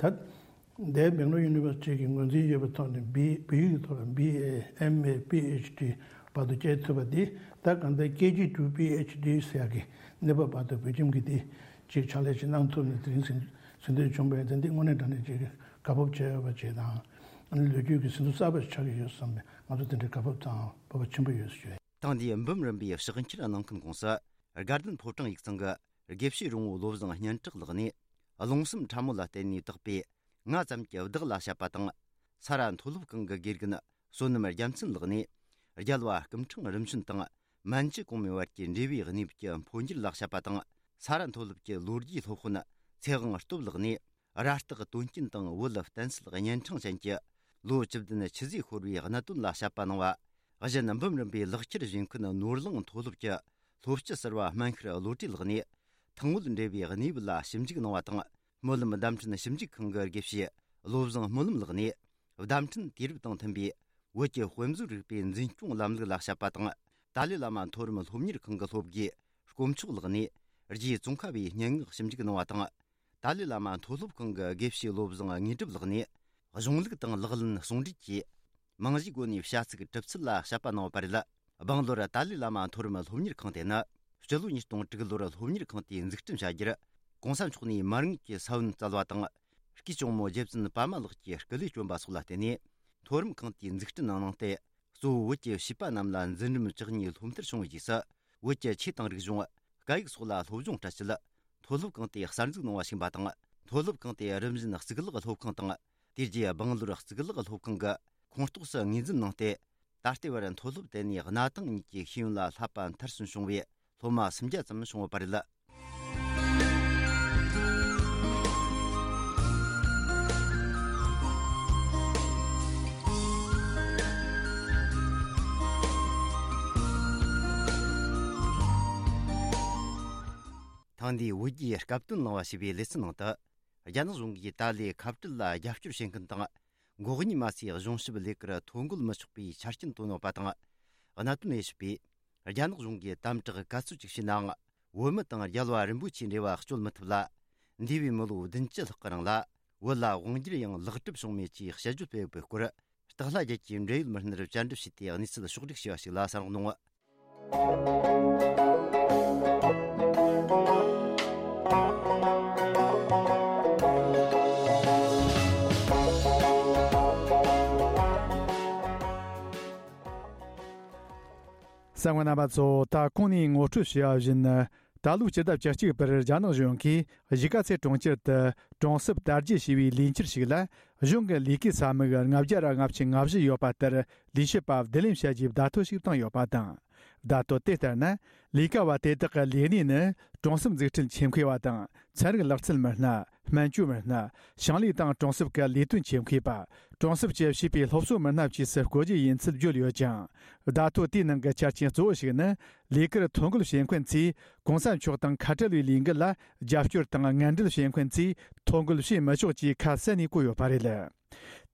ད་འདས་སྦེང་ལོར་ཡུ་ནི་ཝར་སི་ཊི་གི་ངོས་འཛིན་ཡོད་པའི་ཐོག་ནས་བི་བོད་ཡིག་གི་ཐོག་ལ་བི་ཨེ་ཨེམ་ཨེ་པི་ཨེཆ་ཌི་བར་དུ་བསྐྱལ་ཐུབ་པ་འདི། ད་གང་ལྟར་ཀེ་ཇི་ཊུ་པི་ཨེཆ་ཌི་ཟེར་ཡག་གི་གནས་བབ་བར་དུ་བོད་ཁྱིམ་གྱིས་འདི་ཅིག་ཕྱག་ལས་ཅིག་གནང་ཐུབ་ནས་དེ་རིང་ཟིན་ཟིན་བྲིས་བྱུང་བས། དེ་འདི་དངོས་གནས་དྲང་གནས་ཅིག་དགའ་སྤོབས་བྱེད་འོས་པ་ཅིག་དང་། ཨ་ནི་ལོ་རྒྱུས་ཀྱི་ཟིན་ཐོ་གསར་པ་ཞིག་ཆགས་ཀྱི་ཡོད་བསམ་པའི་ང་ཚོ་དེ་འདྲའི་དགའ་སྤོབས་དང་སྤོབས་པ་ཆེན་པོ་ཡོད་ཟེར་ཞུ་ཡ་ཡིན། ཐེངས་འདིའི་འབུམ་རམས་པའི་ཕྱག་འཁྱེར་གནང་མཁན་ཁོངས་སུ། དགའ་ལྡན་ཕོ་བྲང་ཡིག་ཚང་གི་དགེ་བཤེས་རོང་བོ་བློ་བཟང་སྙན་གྲགས་ལགས་ནས། རླུང་སེམས་ཕྲ་མོ་ལ་བརྟེན་ནས་བཏགས་པའི་ང་ཙམ་གྱི་བདག་ལ་བཤད་པ་དང་། ས་ར་མཐོ་སློབ་ཁང་གི་དགེ་རྒན་བསོད་ནམས་རྒྱལ་མཚན་ལགས་ནས། རྒྱལ་བ་སྐུ་ཕྲེང་རིམ་བྱོན་དང་མན་ཇུ་གོང་མའི་བར་གྱི་འབྲེལ་བའི་གནས་བབ་ཀྱི་འཕོ་འགྱུར་ལ་བཤད་པ་དང་། ས་ར་མཐོ་སློབ་ཀྱི་ལོ་རྒྱུས་སློབ་དཔོན་ཚེ་དབང་སྟོབས་ལགས་ནས། ར་སྟག་དོན་རྐྱེན་དང་བོད་བསྟན་སྲིད་གཉན་འཕྲང་ཅན་གྱི་ལོ་བཅུ་བདུན་ཆུ་ཟོས་ཤོར་བའི་གནད་དོན་ལ་བཤད་པ་གནང་བ། གཞན་འབུམ་རམས་པའི་ལག་ཁྱེར་བཞེས་མཁན་ནོར་གླིང་མཐོ་སློབ་ཀྱི་སློབ་སྤྱི་ཟུར་པ་སྨན་ཤར་བློ་གྲོས་ལགས་ནས། ཐང་དངུལ་འབྲེལ་བའི་གནས་བབ་ལ་ཞིབ་འཇུག་གནང་བ་དང་། སྨོན་ལམ་བརྡ་འཕྲིན་ཞིབ་འཇུག་ཁང་གི་དགེ་བཤེས་བློ་བཟང་སྨོན་ལམ་ལགས་ནས། བརྡ་འཕྲིན་དུས་རབས་དང་མཐུན་པའི་བོད་ཀྱི་དཔེ་མཛོད་རིག་པའི་འཛིན་སྐྱོང་ལམ་ལུགས་ལ་བཤད་པ་དང་། ཏཱ་ལའི་བླ་མ་མཐོ་རིམ་སློབ་གཉེར་ཁང་གི་སློབ་དགེ་དཀོན་མཆོག་ལགས་ནས། རྗེ་ཙོང་ཁ་པའི་སྙན་ངག་ཞིབ་འཇུག་གནང་བ་དང་། ཏཱ་ལའི་བླ་མ་མཐོ་སློབ་ཁང་གི་དགེ་བཤེས་བློ་བཟང་དངོས་གྲུབ་ལགས་ནས། གཞུང་ལུགས་དང་ལག་ལེན་ཟུང་འབྲེལ་གྱིས། རྨང་གཞིའི་སྒོ་ནས་བྱ་ཚིག་གྲུབ་ཚུལ་ལ་དཔྱད་པ་གནང་བ་རེད། སྦང་ལོར་ཏཱ་ལའི་བླ་མ་མཐོ་རིམ་སློབ་གཉེར་ཁང་དེ་ནི། སྤྱི་ལོ་ཉིས་སྟོང་དྲུག་ལོར་སློབ་གཉེར་ཁང་དེ་འཛུགས་སྐྲུན་བྱ་རྒྱུར། ༸གོང་ས་མཆོག་ནས་མ་དངུལ་གྱི་ས་བོན་བསྩལ་བ་དང་། སྐུའི་གཅུང་མོ་རྗེ་བཙུན་པདྨ་ལགས་ཀྱིས་སྐུ་ལས་བསྐྱོན་པ་སོགས་ལ་བརྟེན་ནས། མཐོ་རིམ་ཁང་དེའི་འཛུགས་སྐྲུན་ནང་གནང་སྟེ། གཙོ་བོ་བོད་ཀྱི་བྱིས་པ་རྣམས་ལ་འཛིན་རིམ་བཅུ་གཉིས་སློབ་མཐར་བྱུང་བའི་རྗེས་སུ། བོད་ཀྱི་ཆོས་དང་རིག་གཞུང་། སྐད་ཡིག་སོགས་ལ་སློབ་སྦྱོང་སྤྲད་ཆེད། མཐོ་སློབ་ཁང་དེ་གསར་འཛུགས་གནང་བ་ཞིག་ཡིན་པ་དང་། མཐོ་སློབ་ཁང་དེ་རིམ་བཞིན་གཙུག་ལག་སློབ་ཁང་དང་། དེ་རྗེས་སྦང་ལོར་གཙུག་ལག་སློབ་ཁང་གི་ཁོངས་གཏོགས་སུ་ངོས་འཛིན་གནང་སྟེ། ད་ལྟའི་བར་མཐོ་སློབ་དེ་ནས་གནའ་དེང་གཉིས་ཀྱི་ཤེས་ཡོན་ལ་བསླབ་པ་མཐར་སོན་བྱུང་བའི་སློབ་མ་སུམ་བརྒྱ་ཙམ་བྱུང་ཡོད་པ་རེད། ཐེངས་འདིའི་བོད་རྒྱའི་སྐབས་དོན་གླེང་བ་ཞེས་པའི་ལེ་ཚན་ནང་དུ། རྒྱ་ནག་གཞུང་གིས་ཏཱ་ལའི་ཁ་བྲལ་ལ་རྒྱབ་སྐྱོར་བྱེད་མཁན་དང་། འགོག་རྙོག་མ་སའི་གཞུང་ཞབས་ལས་ཀར་ཐོ་འགོད་མི་ཆོག་པའི་ཆ་རྐྱེན་བཏོན་ཡོད་པ་དང་། གནད་དོན་དབྱེ་ཞིབ་པས། རྒྱ་ནག་གཞུང་གིས་དམ་དྲག་ག་ཚོད་ཅིག་བྱས་ནའང་། བོད་མི་དང་རྒྱལ་བ་རིན་པོ་ཆེའི་འབྲེལ་བ་གཅོད་མི་ཐུབ་ལ། འདས་པའི་མི་ལོ་བདུན་ཅུ་ལྷག་གི་རིང་ལ། བོད་ལ་དབང་སྒྱུར་ཡང་ལེགས་གྲུབ་བྱུང་མེད་ཅེས་དཔྱད་བརྗོད་སྤེལ་ཡོད་པའི་སྐོར། སྟག་ལྷ་རྒྱལ་གྱིས་འབྲེལ་ཡོད་མི་སྣར་བཅར་འདྲི་བྱས་ཏེ་གནས་ཚུལ་ཕྱོགས་བསྒྲིགས་བྱས་པ་ཞིག་ལ་གསན་རོགས་གནང་། གསན་མཁན་རྣམ་པ་ཚོ། ད་གོང་ནས་ངོ་སྤྲོད་བྱས་པ་བཞིན། ད་ལོའི་སྤྱི་ཟླ་བཅུ་གཅིག་པར་རྒྱ་ནག་གཞུང་གིས་གཞིས་ཀ་རྩེ་གྲོང་ཁྱེར་དུ་གྲོང་གསེབ་དར་རྒྱས་ཞེས་པའི་ལས་འཆར་ཞིག་ལ། གཞུང་གི་ལས་ཀའི་ས་མིག་ལྔ་བརྒྱ་ར་ལྔ་བཅུ་ང་བཞི་ཡོད་པ་ལྟར། ལས་བྱེད་པ་བསྡུ་ལེན་བྱ་རྒྱུའི་བརྡ་ཐོ་ཞིག་བཏང་ཡོད་པ་དང་། བརྡ་ཐོ་དེ་ལྟར་ན། ལས་ཀ་བ་དེ་དག་གི་ལས་གནས་ནི། གྲོང་གསེབ་འཛུགས་སྐྲུན་ཆེད་མཁས་པ་དང་། ཚན་རིག་ལག་རྩལ་མི་སྣ། སྨན་བཅོས་མི་སྣ། ཞིང་ལས་དང་གྲོང་གསེབ་ཀྱི་ལས་དོན་ཆེད་མཁས་པ། གྲོང་གསེབ་ཀྱི་བྱིས་པའི་སློབ་གསོ་མི་སྣ་བཅས་སུ་བཀོད་རྒྱུ་ཡིན་ཚུལ་བརྗོད་ཡོད་ཅིང་། བརྡ་ཐོ་དེའི་ནང་གི་ཆ་རྐྱེན་གཙོ་བོ་ཞིག་ནི། ལས་ཀར་ཐོ་འགོད་བྱེད་མཁན་ཚོས་༸གོང་ས་མཆོག་དང་ཁ་བྲལ་བའི་ལས་འགུལ་ལ་རྒྱབ་སྐྱོར་དང་ངན་འབྲེལ་བྱེད་མཁན་ཚོས་ཐོ་འགོད་བྱེད་མི་ཆོག་ཅེས་ཁ་གསལ་ནས་བཀོད་ཡོད་པ་རེད།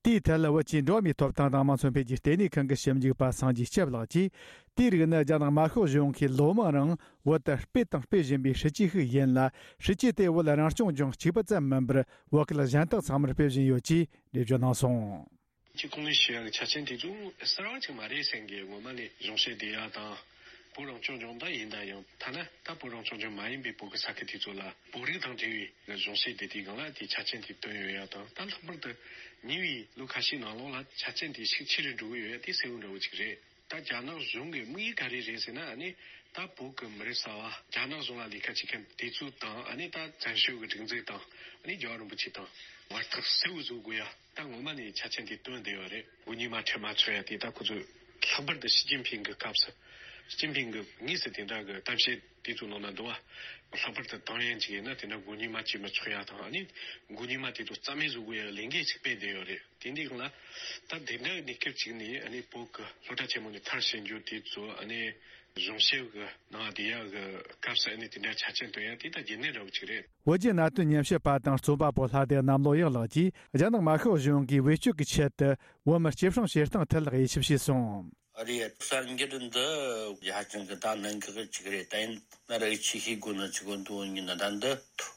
དེའི་ཐད་ལ་བོད་ཀྱི་འགྲོ་བ་མིའི་ཐོབ་ཐང་དང་དམངས་འཚོ་འཕེལ་རྒྱས་ལྟེ་གནས་ཁང་གི་ཞིབ་འཇུག་པ་སངས་རྒྱས་སྐྱབས་ལགས་ཀྱིས། དེའི་རིགས་ནི་རྒྱ་ནག་དམར་ཤོག་གཞུང་གིས་ལོ་མང་རིང་བོད་དུ་སྤེལ་དང་སྤེལ་བཞིན་པའི་སྲིད་ཇུས་ཤིག་ཡིན་ལ། སྲིད་ཇུས་དེ་བོད་རང་སྐྱོང་ལྗོངས་གཅིག་པུ་ཙམ་མིན་པར་བོད་སྐད་གཞན་དག་ཚང་མར་སྤེལ་བཞིན་ཡོད་ཅེས་འགྲེལ་བརྗོད་གནང་སོང་། ཅིག་གོང་ནས་ཞུ་ཡག་གི་ཆ་རྐྱེན་དེ་ཚོ་གསར་བ་ཅིག་མ་རེད་བསམ་གི། སྔོན་མ་ནས་གཞུང་བཤད་བསྡད་ཡག་དང་། བོད་རང་སྐྱོང་ལྗོངས་ད་ཡིན་ད་ཡང་ཐ་ན་ད་བོད་རང་སྐྱོང་ལྗོངས་མ་ཡིན་པའི་བོད་ཀྱི་ས་ཁུལ་དེ་ཚོ་ལ་བོད་རིགས་དང་འབྲེལ་བའི་གཞུང་བཤད་བསྡད་དུས་སྒང་ལ་དེའི་ཆ་རྐྱེན་དེ་བཏོན་ཡོད་ཡག་དང་། ད་ལྷག་པར་དུ་ཉེ་བའི་ལོ་ཁ་ཤས་ནང་ལོགས་ལ་ཆ་རྐྱེན་དེ་ཤུགས་ཆེ་རུ་འགྲོ་གི་ཡོད་ཡག་དེ་གསལ་བོ་འདྲ་བོ་ཅིག་རེད། ད་རྒྱ་ནག་གཞུང་གི་དམིགས་ཡུལ་ག་རེ་རེད་ཟེར་ན། ཨ་ནི་ད་བོད་ཀྱི་མི་རབས་གསར་བ་རྒྱ་ནག་གཞུང་ལ་ལས་ཀ་བྱེད་མཁན་དེ་ཚོ་དང་། ཨ་ནི་ད་བཙན་བྱོལ་གྱི་སྒྲིག་འཛུགས་དང་། ཨ་ནི་རྒྱལ་བ་རིན་པོ་ཆེ་དང་བར་ཐག་གསལ་བོ་བཟོ་དགོས་ཡ། ད་ངོ་མ་ནས་ཆ་རྐྱེན་དེ་བཏོན་བསྡད་ཡོད་རེད། མགོ་གཉིས་མ་ཁྲལ་མ་ཚོགས་ཡ་དེ་ད་ཁོ་ཚོས་ལྷག་པར་དུ་ཞི་ཅིན་ཕིང་གི་སྐབས་སུ། ཞི་ཅིན་ཕིང་གི་དངོས་སུ་དེ་འདྲ་གི་གཏམ་བཤད་དེ་ཚོ་ནང་ན་འདུག་བ། ལྷག་པར་དུ་ཏང་ཡོན་ཅིག་ཡིན་ན་དེ་འདྲ་མགོ་གཉིས་མ་བྱས་མི་ཆོག་ཡ་དང་། ཨ་ནི་མགོ་གཉིས་མ་དེ་ཚོ་རྩ་མེད་བཟོ་དགོས་ཡ་ལས་འགན་ཅིག་སྤེལ་བསྡད་ཡོད་རེད། དེ་འདི་སྒང་ལ་ད་དེ་འདྲ་གི་གནས་སྐབས་ཅིག་ནས། ཨ་ནི་བོད་ཀྱི་སློབ་གྲྭ་ཆེན་མོ་ནས་མཐར་ཕྱིན་རྒྱུ་དེ་ཚོ། ཨ་ནི་གཞུང་ཞབས་ཀྱི་ནང་བསྡད་ཡག་གི་སྐབས་སུ། ཨ་ནི་དེ་འདྲ་ཆ་རྐྱེན་བཏོན་ཡག་དེ་ད་རྒྱུན་གནས་འདྲ་བོ་ཅིག་རེད། བོད་བརྒྱུད་ནང་བསྟན་ཉམས་ཞིབ་པ་དང་རྩོམ་པ་པོ་ལྷ་སྡེ་གནམ་ལོ་ཡག་ལགས་ཀྱིས། རྒྱ་ནག་དམར་ཤོག་གཞུང་གིས་བེད་སྤྱོད་ཀྱི་ཆེད་དུ་བོད་མི་སྐྱིད་སྲུང་བྱེད་སྟངས་ཐད་ལ་དབྱེ་ཞིབ་བྱས་སོང་། རེད། གསར་འགྱུར་འདི་ཧ་ཅང་གི་ད་གནད་འགག་ཅིག་རེད། ད་ཡིན་ན་ར་ཡིད་ཆེས་བྱེད་དགོས་ནི་ཅིག་འདུག་ཡིན་ན་ད་འདི་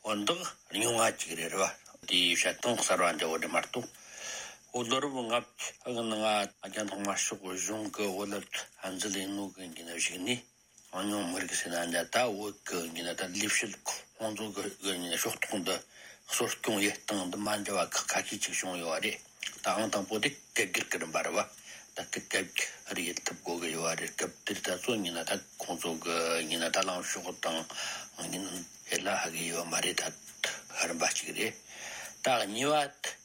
དོན་དག་རྙིང་བ་ཅིག་རེད། རེད་བ། དེའི་བཤད་སྟངས་གསར་བ་འདྲ་བོ་རེད་མ་གཏོགས། འོ་ལོ་རབས་ལྔ་བཅུ་གི་ནང་རྒྱ་ནག་དམར་ཤོག་གཞུང་གི་བོད་ལ་ཧན་ཛི་ལེན་ནོ་གི་ཡིན་ན་གཞིགས་ནས། གྲངས་ཉུང་མི་རིགས་ཟེར་ན་འདྲ། ད་བོད་ཀྱི་ཡིན་ན་ད་ལས་བྱེད་ཁོང་ཚོ་གི་ཡིན་ན་ཕྱོགས་གཏོགས་འདི་གསོ་སྐྱོང་ཡེད་སྟངས་འདི་མ་འདྲ་བ་ཁག་ཁ་ཤས་ཅིག་བྱུང་ཡོད་རེད། ད་ཨང་དང་པོ་དེ་སྐད་སྒྱུར་གྱི་རིམ་པ་རེད་བ། ད་སྐད་སྒྱུར་ཡེད་ཐུབ་དགོས་ཀྱི་ཡོད་རེད། སྐབས་དེར་ད་གཙོ་ཡིན་ན་ད་ཁོང་ཚོ་གི་ཡིན་ན་ད་ལངས་ཕྱོགས་དང་ཡིན་ན་ཡེད་ལ་ཧ་གི་ཡོད་མ་རེད། ད་རིམ་པ་གཅིག་རེད། ད་གཉིས་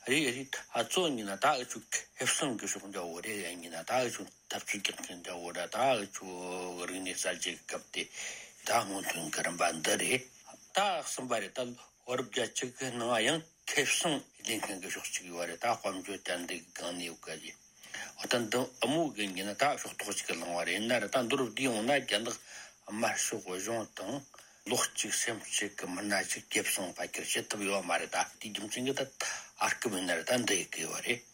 པ་རེད་རེད། ད་གཙོ་ཡིན་ན་ད་འུ་ཆོ་ཁེ་བཟང་གི་ཕྱོགས་འདྲ་བོ་རེད། ཡིན་ན་ད་འུ་ཆོ་ཐབས་ཇུས་རྒྱག་མཁན་འདྲ་བོ་ར། ད་འུ་ཆོ་རིག་གནས་གསར་བརྗེ་གི་སྐབས་དེ་ད་སྔོན་ཐོན་གྱི་རིམ་པ་འདི་རེད། ད་གསུམ་པ་རེད། ད་བོད་རབས་བརྒྱད་ཅུ་གི་ནང་ཡང་ཁེ་བཟང་ལེན་མཁན་གྱི་ཕྱོགས་གཅིག་ཡོད་རེད། ད་དཔལ་འབྱོར་བསྟན་འཛིན་གྱི་སྒང་ནས་ཡོད་ག་ཞེས། འོ་ད་འདི་དབུ་མོ་གི་ཡིན་ན་ད་ཕྱོགས་གཏོགས་གཅིག་གི་ལངས་པ་རེད། ཡིན་ན་ར་ད་མདོར་བསྡུས་ཡོང་ན་རྒྱ་ནག་དམར་ཤོག་གཞུང་དང་བློ་གཅིག་སེམས་གཅིག་གི་མི་སྣ་གཅིག་ཁེ་བཟང་ཕལ་ཆེར་བྱེད་ཐུབ་ཡོད་མ་རེད། ད་དེའི་རྒྱུ་མཚན་གྱིས་ད་ཨར་སྐབས་ཡིན་ན་ར་ད་འདི་ཡི་གི་ཡོད་རེད།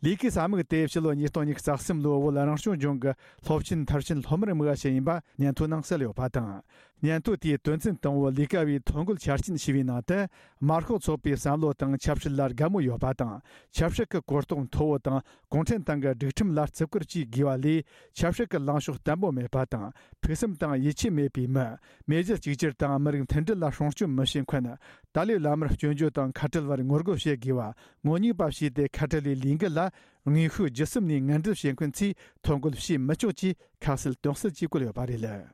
ལས་ཀའི་ས་མིག་དེ་ཕྱི་ལོ་ཉིས་སྟོང་ཉི་ཤུ་རྩ་གསུམ་ལོའི་བོད་རང་སྐྱོང་ལྗོངས་ཀྱི་སློབ་ཆེན་མཐར་ཕྱིན་སློབ་མར་དམིགས་པ་ཞིག་ཡིན་པ་སྙན་ཐོའི་ནང་གསལ་ཡོད་པ་དང་། སྙན་ཐོ་དེའི་དོན་ཚན་དང་པོ་ལས་ཀ་བའི་ཐོ་འགོད་ཆ་རྐྱེན་ཞེས་པའི་ནང་དུ། དམར་ཤོག་ཚོགས་པའི་བསམ་བློ་དང་ཆབ་སྲིད་ལ་དགའ་མོས་ཡོད་པ་དང་། ཆབ་སྲིད་ཀྱི་གོ་རྟོགས་མཐོ་བོ་དང་། གུང་ཁྲན་ཏང་གི་སྒྲིག་ཁྲིམས་ལ་བརྩི་བཀུར་བཅས་དགོས་པ་ལས། ཆབ་སྲིད་ཀྱི་ལངས་ཕྱོགས་བརྟན་པོ་མེད་པ་དང་། ཕུགས་བསམ་དང་ཡིད་ཆེས་མེད་པའི་མི། མེས་རྒྱལ་གཅིག་གྱུར་དང་མི་རིགས་མཐུན་སྒྲིལ་ལ་སྲུང་སྐྱོབ་མི་བྱེད་མཁན། ཏཱ་ལའི་བླ་མར་སྐྱོན་བརྗོད་དང་ཁ་བྲལ་བར་ངོ་རྒོལ་བྱེད་དགོས་པ། ངོ་ཉེས་པ་བྱས་ཏེ་ཁ་བྲལ་བའི་ལས་འགུལ་ལ་དངོས་ཤུགས་བརྒྱུད་གསུམ་ནས་ངན་འབྲེལ་བྱེད་མཁན་ཚོས་ཐོ་འགོད་བྱེད་མི་ཆོག་ཅེས་ཁ་གསལ་དོན་གསལ་གྱིས་བཀོད་ཡོད་པ་རེད།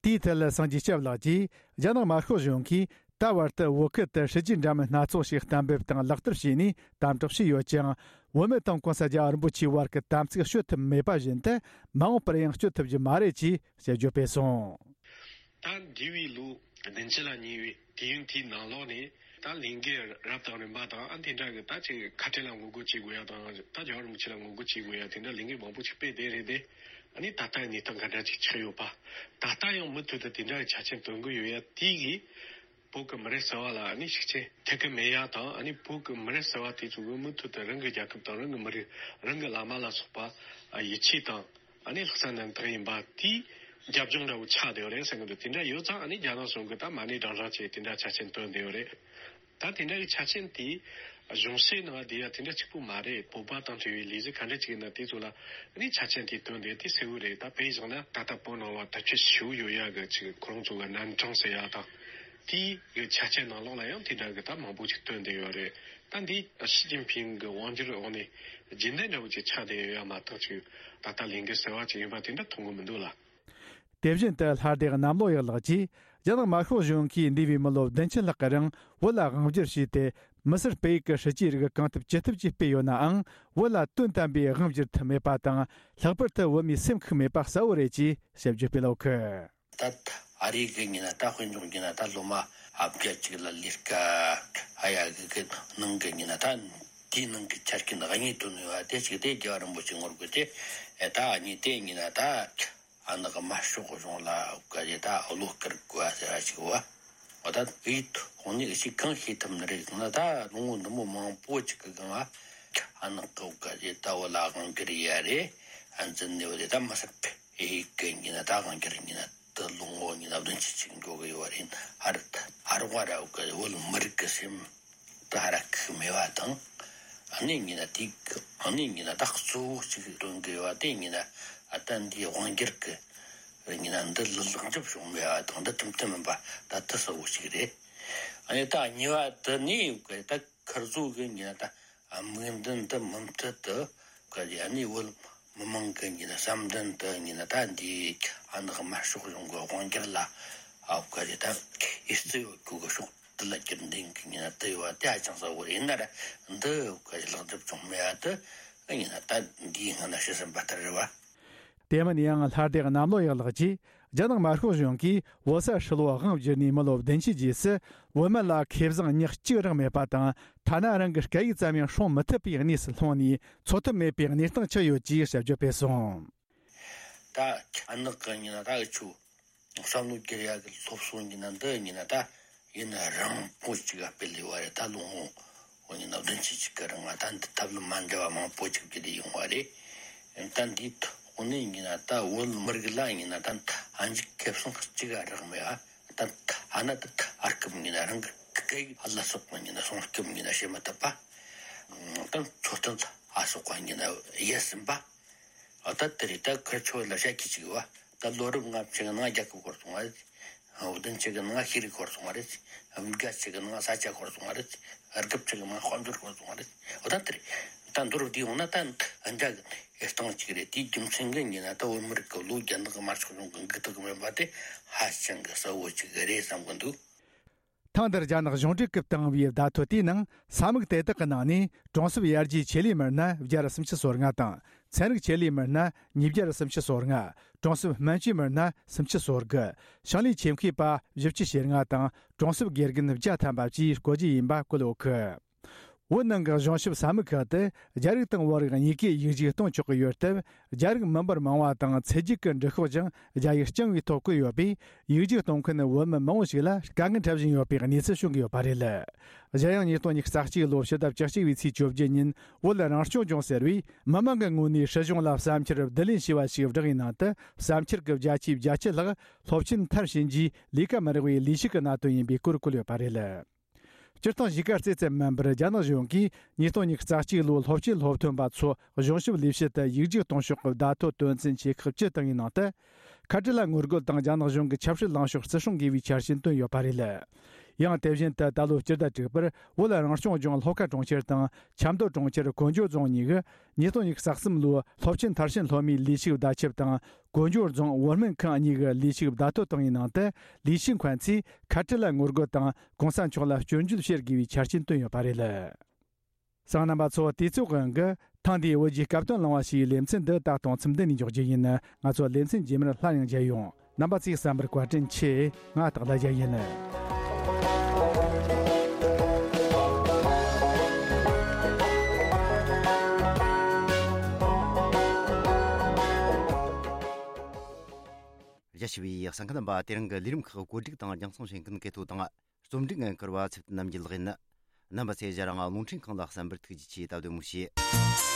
དེའི་ཐད་ལ་སངས་རྒྱས་སྐྱབས་ལགས་ཀྱིས། རྒྱ་ནག་དམར་ཤོག་གཞུང་གིས་ད་བར་དུ་བོད་ཁུལ་དུ་སྲིད་ཇུས་འདྲ་མིན་སྣ་ཚོགས་ཤིག་གཏན་འབེབས་དང་ལག་བསྟར་བྱས་ནས་དམ་དྲག་བྱས་ཡོད་ཀྱང་། བོད་མི་དང་གོང་ས་རྒྱལ་བ་རིན་པོ་ཆེའི་བར་གྱི་དམ་ཚིག་གཅོད་ཐུབ་མེད་པ་བཞིན་དུ། མ་འོངས་པར་ཡང་གཅོད་ཐུབ་རྒྱུ་མ་རེད་ཅེས་དཔྱད་བརྗོད་སྤེལ་སོང་། ད་འདས་པའི་ལོ་བདུན་ཅུ་ལ་ཉེ་བའི་དུས་ཡུན་དེའི་ནང་ལོགས་ནས། ད་ལས་འགུལ་རབ་དང་རིམ་པ་དང་། ཨ། དེ་འདྲ་གི་ད་ཅིག་ཁ་བྲལ་ལ་ངོ་རྒོལ་བྱེད་དགོས་ཡ་དང་། ད་རྒྱལ་བ་རིན་པོ་ཆེ་ལ་ངོ་རྒོལ་བྱེད་དགོས་ཡ། དེ་འདྲ་ལས་འགུལ་མང་པོ་ཅིག་སྤེལ་བསྡད་རེད་དེ། ཨ་ནི་ད་ལྟ་གནས་སྟངས་ག་འདྲ་ཅིག་ཆགས་ཡོད་པ། ད་ལྟ་ཡང་མུ་མཐུད་དུ་དེ་འདྲ་གི་ཆ་རྐྱེན་སྟོན་གི་ཡོད་ཡ་དེ་གིས། བོད་ཀྱི་མི་རབས་གསར་བ་ལ་ཨ་ནི་ཤུགས་རྐྱེན་ཐེབས་གི་མེད་ཡ་དང་། ཨ་ནི་བོད་ཀྱི་མི་རབས་གསར་བ་དེ་ཚོ་གིས་མུ་མཐུད་དུ་རང་གི་རྒྱལ་ཁབ་དང་། རང་གི་མི་རིགས། རང་གི་བླ་མ་ལ་སོགས་པ་ཡིད་ཆེས་དང་། ཨ་ནི་ལྷག་བསམ་རྣམ་དག་ཡིན་པ་དེའི་རྒྱབ་ལྗོངས་འདྲ་བོ་ཆགས་བསྡད་ཡོད་རེད་བསམ་གི་འདུག་དེ་འདྲ་ཡོད་ཙང་། ཨ་ནི་རྒྱ་ནག་གཞུང་གིས་ད་མ་ཎི་བགྲང་བགྲང་བྱས་དེ་འདྲ་ཆ་རྐྱེན་བཏོན་བསྡད་ཡོད་རེད། ད་དེ་འདྲ་གི་ཆ་རྐྱེན་དེ་གཞུང་བཤད་ནང་དེ་ཡ་དེ་འདྲ་གཅིག་པུ་མ་རེད། བོད་པ་དང་འབྲེལ་བའི་ལས་གཞི་ག་འདྲ་ཅིག་ཡིན་ན་དེ་ཚོ་ལ་ཨ་ནི་ཆ་རྐྱེན་དེ་བཏོན་བསྡད་དེ་གསལ་བོ་རེད། ད་དཔེ་བཞག་ན་ད་ལྟ་བོད་ནང་ལ་དར་ཁྱབ་ཞེ་པོ་ཡོད་ཡ་གི་ཅིག་ཁོ་རང་ཚོ་གི་རྣམ་གྲངས་ཟེར་ཡ་དང་། དེའི་གི་ཆ་རྐྱེན་ནང་ལོགས་ལ་ཡང་དེ་འདྲ་གི་ད་མང་པོ་ཅིག་བཏོན་བསྡད་ཡོད་རེད། ད་འདི་ཞི་ཅིན་ཕིང་གི་དབང་སྒྱུར་འོག་ནས་རྒྱུན་ལྡན་འདྲ་བོ་ཅིག་ཆགས་བསྡད་ཡོད་ཡ་མ་གཏོགས། ཅིག་ད་ལྟ་ལས་འགུལ་གསར་བ་ཅིག་ཡིན་པ་དེ་འདྲ་མཐོང་གི་མི་འདུག་ལ། དེ་བཞིན་དུ་ལྷ་སྡེ་གནམ་ལོ་ཡག་ལགས་ཀྱིས། རྒྱ་ནག་དམར་ཤོག་གཞུང་གིས་འདས་པའི་མི་ལོ་བདུན་ཅུ་ལྷག་གི་རིང་བོད་ལ་དབང་སྒྱུར་བྱས་ཏེ། མི་སེར་སྤེལ་ཡུལ་གྱི་སྲིད་ཇུས་རིགས་གང་ཐུབ་ཅི་ཐུབ་ཀྱིས་སྤེལ་ཡོད་ནའང་། བོད་ལ་དོན་དམ་པའི་དབང་བསྒྱུར་ཐུབ་མེད་པ་དང་། ལྷག་པར་དུ་བོད་མིའི་སེམས་ཤུགས་མེད་པ་གསལ་བོ་རེད་ཅེས་དཔྱད་བརྗོད་སྤེལ་ཡོད་གི། ད་ཨ་རི་གི་ཡིན་ན་ད་དཔེ་འཇོག་རྒྱུ་ན། ད་སློབ་མ་ཨ་བརྒྱ་ཅིག་ལ་ལས་ཀ་ཨ་ཡ་གི་གི་ནང་གི་ཡིན་ན། ད་དེའི་ནང་གི་ཆ་རྐྱེན་དངོས་གནས་དོན་ཡོད་པ་དེ་ཅིག་དེ་རྒྱལ་བ་རིན་པོ་ཆེ་ངོ་རྒོལ་ཏེ། ཨེ་ད་ཨ་ནི་དེ་ཡིན་ན་ད་ཨ་ནི་གི་དམར་ཤོག་གཞུང་ལ་ག་རེ་ད་བློ་དཀར་དགོས་པ་ཟེར་བ་ཅིག་བ། འོ་ད་དེའི་ཐོག་ནས་ཅིག་གང་ཤེས་ཐུབ་ནི་རེད་ཟེར་ན། ད་ལོ་ངོ་འདི་མོ་མང་པོ་ཅིག་གི་སྒང་ལ། ཨ་ནག་གི་བོད་ག་རེ་ད་བོད་ལ་དབང་སྒྱུར་ཡ་རེད། ཨ་འཛིན་ནས་བོད་ད་མི་སྲིད་པའི་ཨེ་གི་ཡིན་ན་ད་དབང་སྒྱུར་ཡིན་ན་ད་ལོ་ངོ་ཡིན་ན་བདུན་ཅུ་ཅིག་འགྲོ་གི་ཡོད་རེད། ཨ་རི་ད་ཨ་རོགས་ར་བོད་ག་བོད་མི་རིགས་ཀྱི་སེམས་ད་ཧ་ར་ཁུག་མེད་པ་དང་། ཨ་ནི་ཡིན་ན་དེ་ཨ་ནི་ཡིན་ན་ད་གཙོ་བོ་གཅིག་སྟོན་གི་ཡོད་པ་དེ་ཡིན་ན་ཨ་ད་འདིའི་དབང་སྒྱུར་གི་ཡིན་ན་འདི་ལ་ལེགས་འགྲུབ་བྱུང་མེད་པ་དང་འདི་ཁྲིམས་མཐུན་མིན་པ་ད་དེ་གཙོ་བོ་གཅིག་རེད། ཨ་ནི་ད་གཉིས་པ་དེ་ནི་ད་ཁིར་ཚོ་གི་ཡིན་ན་ད་དམིགས་འདུན་དེ་མུ་མཐུད་དུ་ག་རེ་ཨ་ནི་བོད་མི་མང་གི་ཡིན་ན་བསམ་འདུན་དེ་ཡིན་ན་ད་འདི་ཨ་ནི་དམར་ཤོག་གཞུང་གི་དབང་སྒྱུར་ལ་ཨ་ག་རེ་ད་ཨེ་རྩི་ཡོད་རྒྱུ་གི་ཕྱོགས་དེ་ལ་རྒྱུན་ལྡན་གི་ཡིན་ན་དེ་ཡོད་པ་དེ་ཧ་ཅང་གསལ་བོ་རེད། ཡིན་ན་ར་འདི་ག་རེ་ལེགས་འགྲུབ་བྱུང་མེད་པ་དེ་ཡིན་ན་ད་འདིའི་སྔ་ན་ཤི་ཟིན་པ་ལྟར་རེད་བ། དེ་མིན་ཡང་ལྷ་སྡེ་གནམ་ལོ་ཡག་ལགས་ཀྱིས་རྒྱ་ནག་དམར་ཤོག་གཞུང་གིས་བོད་ས་ཧྲིལ་བོ་དབང་བསྒྱུར་ནས་མི་ལོ་བདུན་ཅུ་རྗེས་སུ་བོད་མི་ལ་ཁེ་བཟང་ཉག་གཅིག་རག་མེད་པ་དང་ཐ་ན་རང་གི་སྐད་ཡིག་ཙམ་ཡང་སྲུང་མི་ཐུབ་པའི་གནས་སུ་ལྷུང་ནས་འཚོ་ཐབས་མེད་པའི་གནས་སྟངས་ཆགས་ཡོད་ཅེས་དཔྱད་བརྗོད་སྤེལ་སོང་། ད་ཨ་ནག་གི་ཡིན་ན་ད་འུ་ཆོ་བསམ་བློ་བསྒྱུར་ཡག་གི་སློབ་གསོ་ཡིན་ན་འདི་ཡིན་ན་ད་ཡིན་ན་རིང་པོ་ཅིག་ག་སྤེལ་ལས་བ་རེད། ད་ལོ་ངོ་འོ་ཡིན་ན་བདུན་ཅུ་ཅིག་གི་རིང་ང་ད་འདི་ཐབས་ལམ་མ་འདྲ་བ་མང་པོ་ཅིག་བརྒྱུད་དེ་ཡོང་བ་རེད། ད་འདིའི་ཐོག་ནས་ཡིན་ན་ད་བོད་མི་རིགས་ལ་ཡིན་ན་ད་ཨ་འཇིག་ཁེ་བཟང་གཅིག་ག་རག་མེད་ཨ། ད་ཨ་ན་ད་ཨར་སྐབས་ཡིན་ན་རང་གི་སྐད་ཡིག་ལ་སོགས་པ་ཡིན་ན་སྲུང་སྐྱོབ་ཡིན་ན་བྱེད་མི་ཐུབ་པ། ད་འཚོ་རྟེན་ལ་སོགས་པ་ཡིན་ན་ཡལ་ཟིན་པ། ཨ་ད་དེ་རེད། ད་ཁིར་ཆོ་ལ་བཤད་ཀྱི་ཅིག་ཡོད་བ། ད་ལོ་རབས་ལྔ་བཅུ་གི་ནང་རྒྱལ་ཁབ་བསྐོར་སོང་བ་རེད། བདུན་ཅུ་གི་ནང་ཤེས་རིག་བསྐོར་སོང་བ་རེད། བརྒྱད་ཅུ་གི་ནང་ས་ཆ་བསྐོར་སོང་བ་རེད། དགུ་བཅུ་གི་ནང་དཔལ་འབྱོར་བསྐོར་སོང་བ་རེད། འོ་ད་དེ་རེད། ད་མདོར་བསྡུས་ཡོང་ན་ད་འདྲ་གི་སྟངས་ཅིག་རེད། དེའི་རྒྱུ་མཚན་གྱིས་ཡིན་ན་ད་བོད་མི་རིགས་ཀྱི་ལོ་རྒྱ་ནག་གི་དམར་ཤོག་གཞུང་གི་འགུག་ཐབས་མེད་པ་དེ་ཧ་ཅང་གི་གསལ་བོ་ཅིག་རེད་བསམ་གི་འདུག། ཐེངས་འདིར་རྒྱ་ནག་གཞུང་འབྲེལ་གྱིས་བཏང་བའི་བརྡ་ཐོ་དེའི་ནང་ས་མིག་དེ་དག་གི་ནང་ནས་གྲོང་གསེབ་ཡར་རྒྱས་ཆེད་ལས་མི་སྣ་བརྒྱ་དང་སུམ་ཅུ་སོ་ལྔ་དང་། ཚན་རིག་ཆེད་ལས་མི་སྣ་ཉིས་བརྒྱ་དང་སུམ་ཅུ་སོ་ལྔ། གྲོང་གསེབ་སྨན་བཅོས་མི་སྣ་སུམ་ཅུ་སོ་དགུ། ཞིང་ལས་ཆེད་མཁས་པ་བཞི་བཅུ་ཞེ་ལྔ་དང་གྲོང་གསེབ་དགེ་རྒན་བརྒྱ་ཐམ་པ་བཅས་བསྐོ་རྒྱུ་ཡིན་པ་བཀོད་ཡོད་གི། བོད་ནང་གི་གཞུང་ཞབས་ས་མིག་ཁག་ཏུ་རྒྱ་རིགས་དང་བོད་རིགས་གཉིས་ཀས་ཡིག་རྒྱུགས་གཏོང་ཆོག་གི་ཡོད་སྟབས། རྒྱ་རིགས་མི་འབོར་མང་བ་དང་ཚེ་སྒྱུག་གི་འབྲི་ཤོག་ཀྱང་རྒྱ་ཡིག་རྐྱང་བའི་ཐོག་བཀོད་ཡོད་པས། ཡིག་རྒྱུགས་གཏོང་མཁན་བོད་མི་མང་བོ་ཞིག་ལ་དཀའ་ངལ་འཕྲད་བཞིན་ཡོད་པའི་གནས་ཚུལ་བྱུང་གི་ཡོད་པ་རེད། གཞན་ཡང་ཉིས་སྟོང་ཉི་ཤུ་རྩ་གཅིག་ལོ་ཕྱི་ཟླ་བཅུ་གཅིག་པའི་ཚེས་བཅོ་བརྒྱད་ཉིན་བོད་རང་སྐྱོང་ལྗོངས་ཟེར་བས་མི་མང་གི་ངོས་ནས་སྲིད་གཞུང་ལ་བསམ་འཆར་བསྡུ་ལེན་བྱས་པ་ཞིག་བསྒྲགས་པའི་ནང་དུ། བསམ་འཆར་གྱི་བརྒྱ་ཆའི་བརྒྱད་ཅུ་ལྷག་སློབ་ཆེན་མཐར་ཕྱིན་རྗེས་ལས་ཀ་མི་རག་པའི་ལས་ཞུགས་ཀྱི་གནད་དོན་ཡིན་པའི་སྐོར་བཀོད་ཡོད་པ་རེད། སྤྱིར་བཏང་གཞིས་ཀ་རྩེ་ཙམ་མིན་པར་རྒྱ་ནག་གཞུང་གིས་ཉིས་སྟོང་ཉི་ཤུ་རྩ་གཅིག་ལོའི་སློབ་ཆེན་སློབ་ཐོན་པ་ཚོ་གཞུང་ཞབས་ལས་བྱེད་དུ་ཡིག་རྒྱུགས་གཏོང་ཕྱོགས་ཀྱི་བརྡ་ཐོ་དོན་ཚན་ཆེ་ཁག་བཅུ་བཏང་བའི་ནང་དུ། ཁ་བྲལ་ལ་ངོ་རྒོལ་དང་རྒྱ་ནག་གཞུང་གི་ཆབ་སྲིད་ལངས་ཕྱོགས་བརྩི་སྲུང་དགོས་པའི་འཆར་ཅན་བཏོན་ཡོད་པ་རེད། ཡང་དེ་བཞིན་དུ་ད་ལོའི་སྤྱི་ཟླ་དྲུག་པར་བོད་རང་སྐྱོང་ལྗོངས་ལྷོ་ཁ་གྲོང་ཁྱེར་དང་ཆབ་མདོ་གྲོང་ཁྱེར་ཀོན་ཇོ་རྫོང་གཉིས་ཀྱི་ཉིས་སྟོང་ཉི་ཤུ་རྩ་གསུམ་ལོའི་སློབ་ཆེན་མཐར་ཕྱིན་སློབ་མའི་ལས་ཞུགས་བརྡ་ཁྱབ་དང་། ཀོན་ཇོ་རྫོང་བོད་སྨན་ཁང་གཉིས་ཀྱི་ལས་ཞུགས་བརྡ་ཐོ་བཏང་བའི་ནང་དུ། ལས་བྱེད་མཁན་ཚོས་ཁ་བྲལ་ལ་ངོ་རྒོལ་དང་གོང་ས་མཆོག་ལ་སྐྱོན་བརྗོད་བྱེད་དགོས་པའི་འཆར་ཅན་བཏོན་ཡོད་པ་རེད། གསན་མཁན་རྣམ་པ་ཚོ། དུས་ཚོད་དབང་གིས་ཐེངས་འདིའི་བོད་ཀྱི་སྐབས་དོན་གླེང་བ་ཞེས་པའི་ལེ་ཚན་འདི་ད་དུང་མཚམས་འདི་ནས་འཇོག་རྒྱུ་ཡིན། ང་ཚོ་ལེ་ཚན་རྗེས་མར་སླར་ཡང་མཇལ་ཡོང་། རྣམ་པ་ཚོས་གསན་པར་བཀའ་དྲིན་ཆེ། ང་སྟག་ལྷ་རྒྱལ་ཡིན། རྒྱ་ཆེ་བའི་གསན་མཁན་རྣམ་པ། དེ་རིང་གི་ལས་རིམ་ཁག་བཀོད་སྒྲིག་དང་རྒྱང་སྲིང་བྱེད་མཁན་གལ་ཐོ་དང་། རྩོམ་སྒྲིག་འགན་འཁུར་བ་ཚེ་བརྟན་རྣམ་རྒྱལ་ལགས་ཡིན། རྣམ་པ་ཚོས་ང་རང་རླུང་འཕྲིན་ཁང་ལ་གསན་པར་ཐུགས་རྗེ་ཆེ། ད་བདེ་མོ་བྱོས།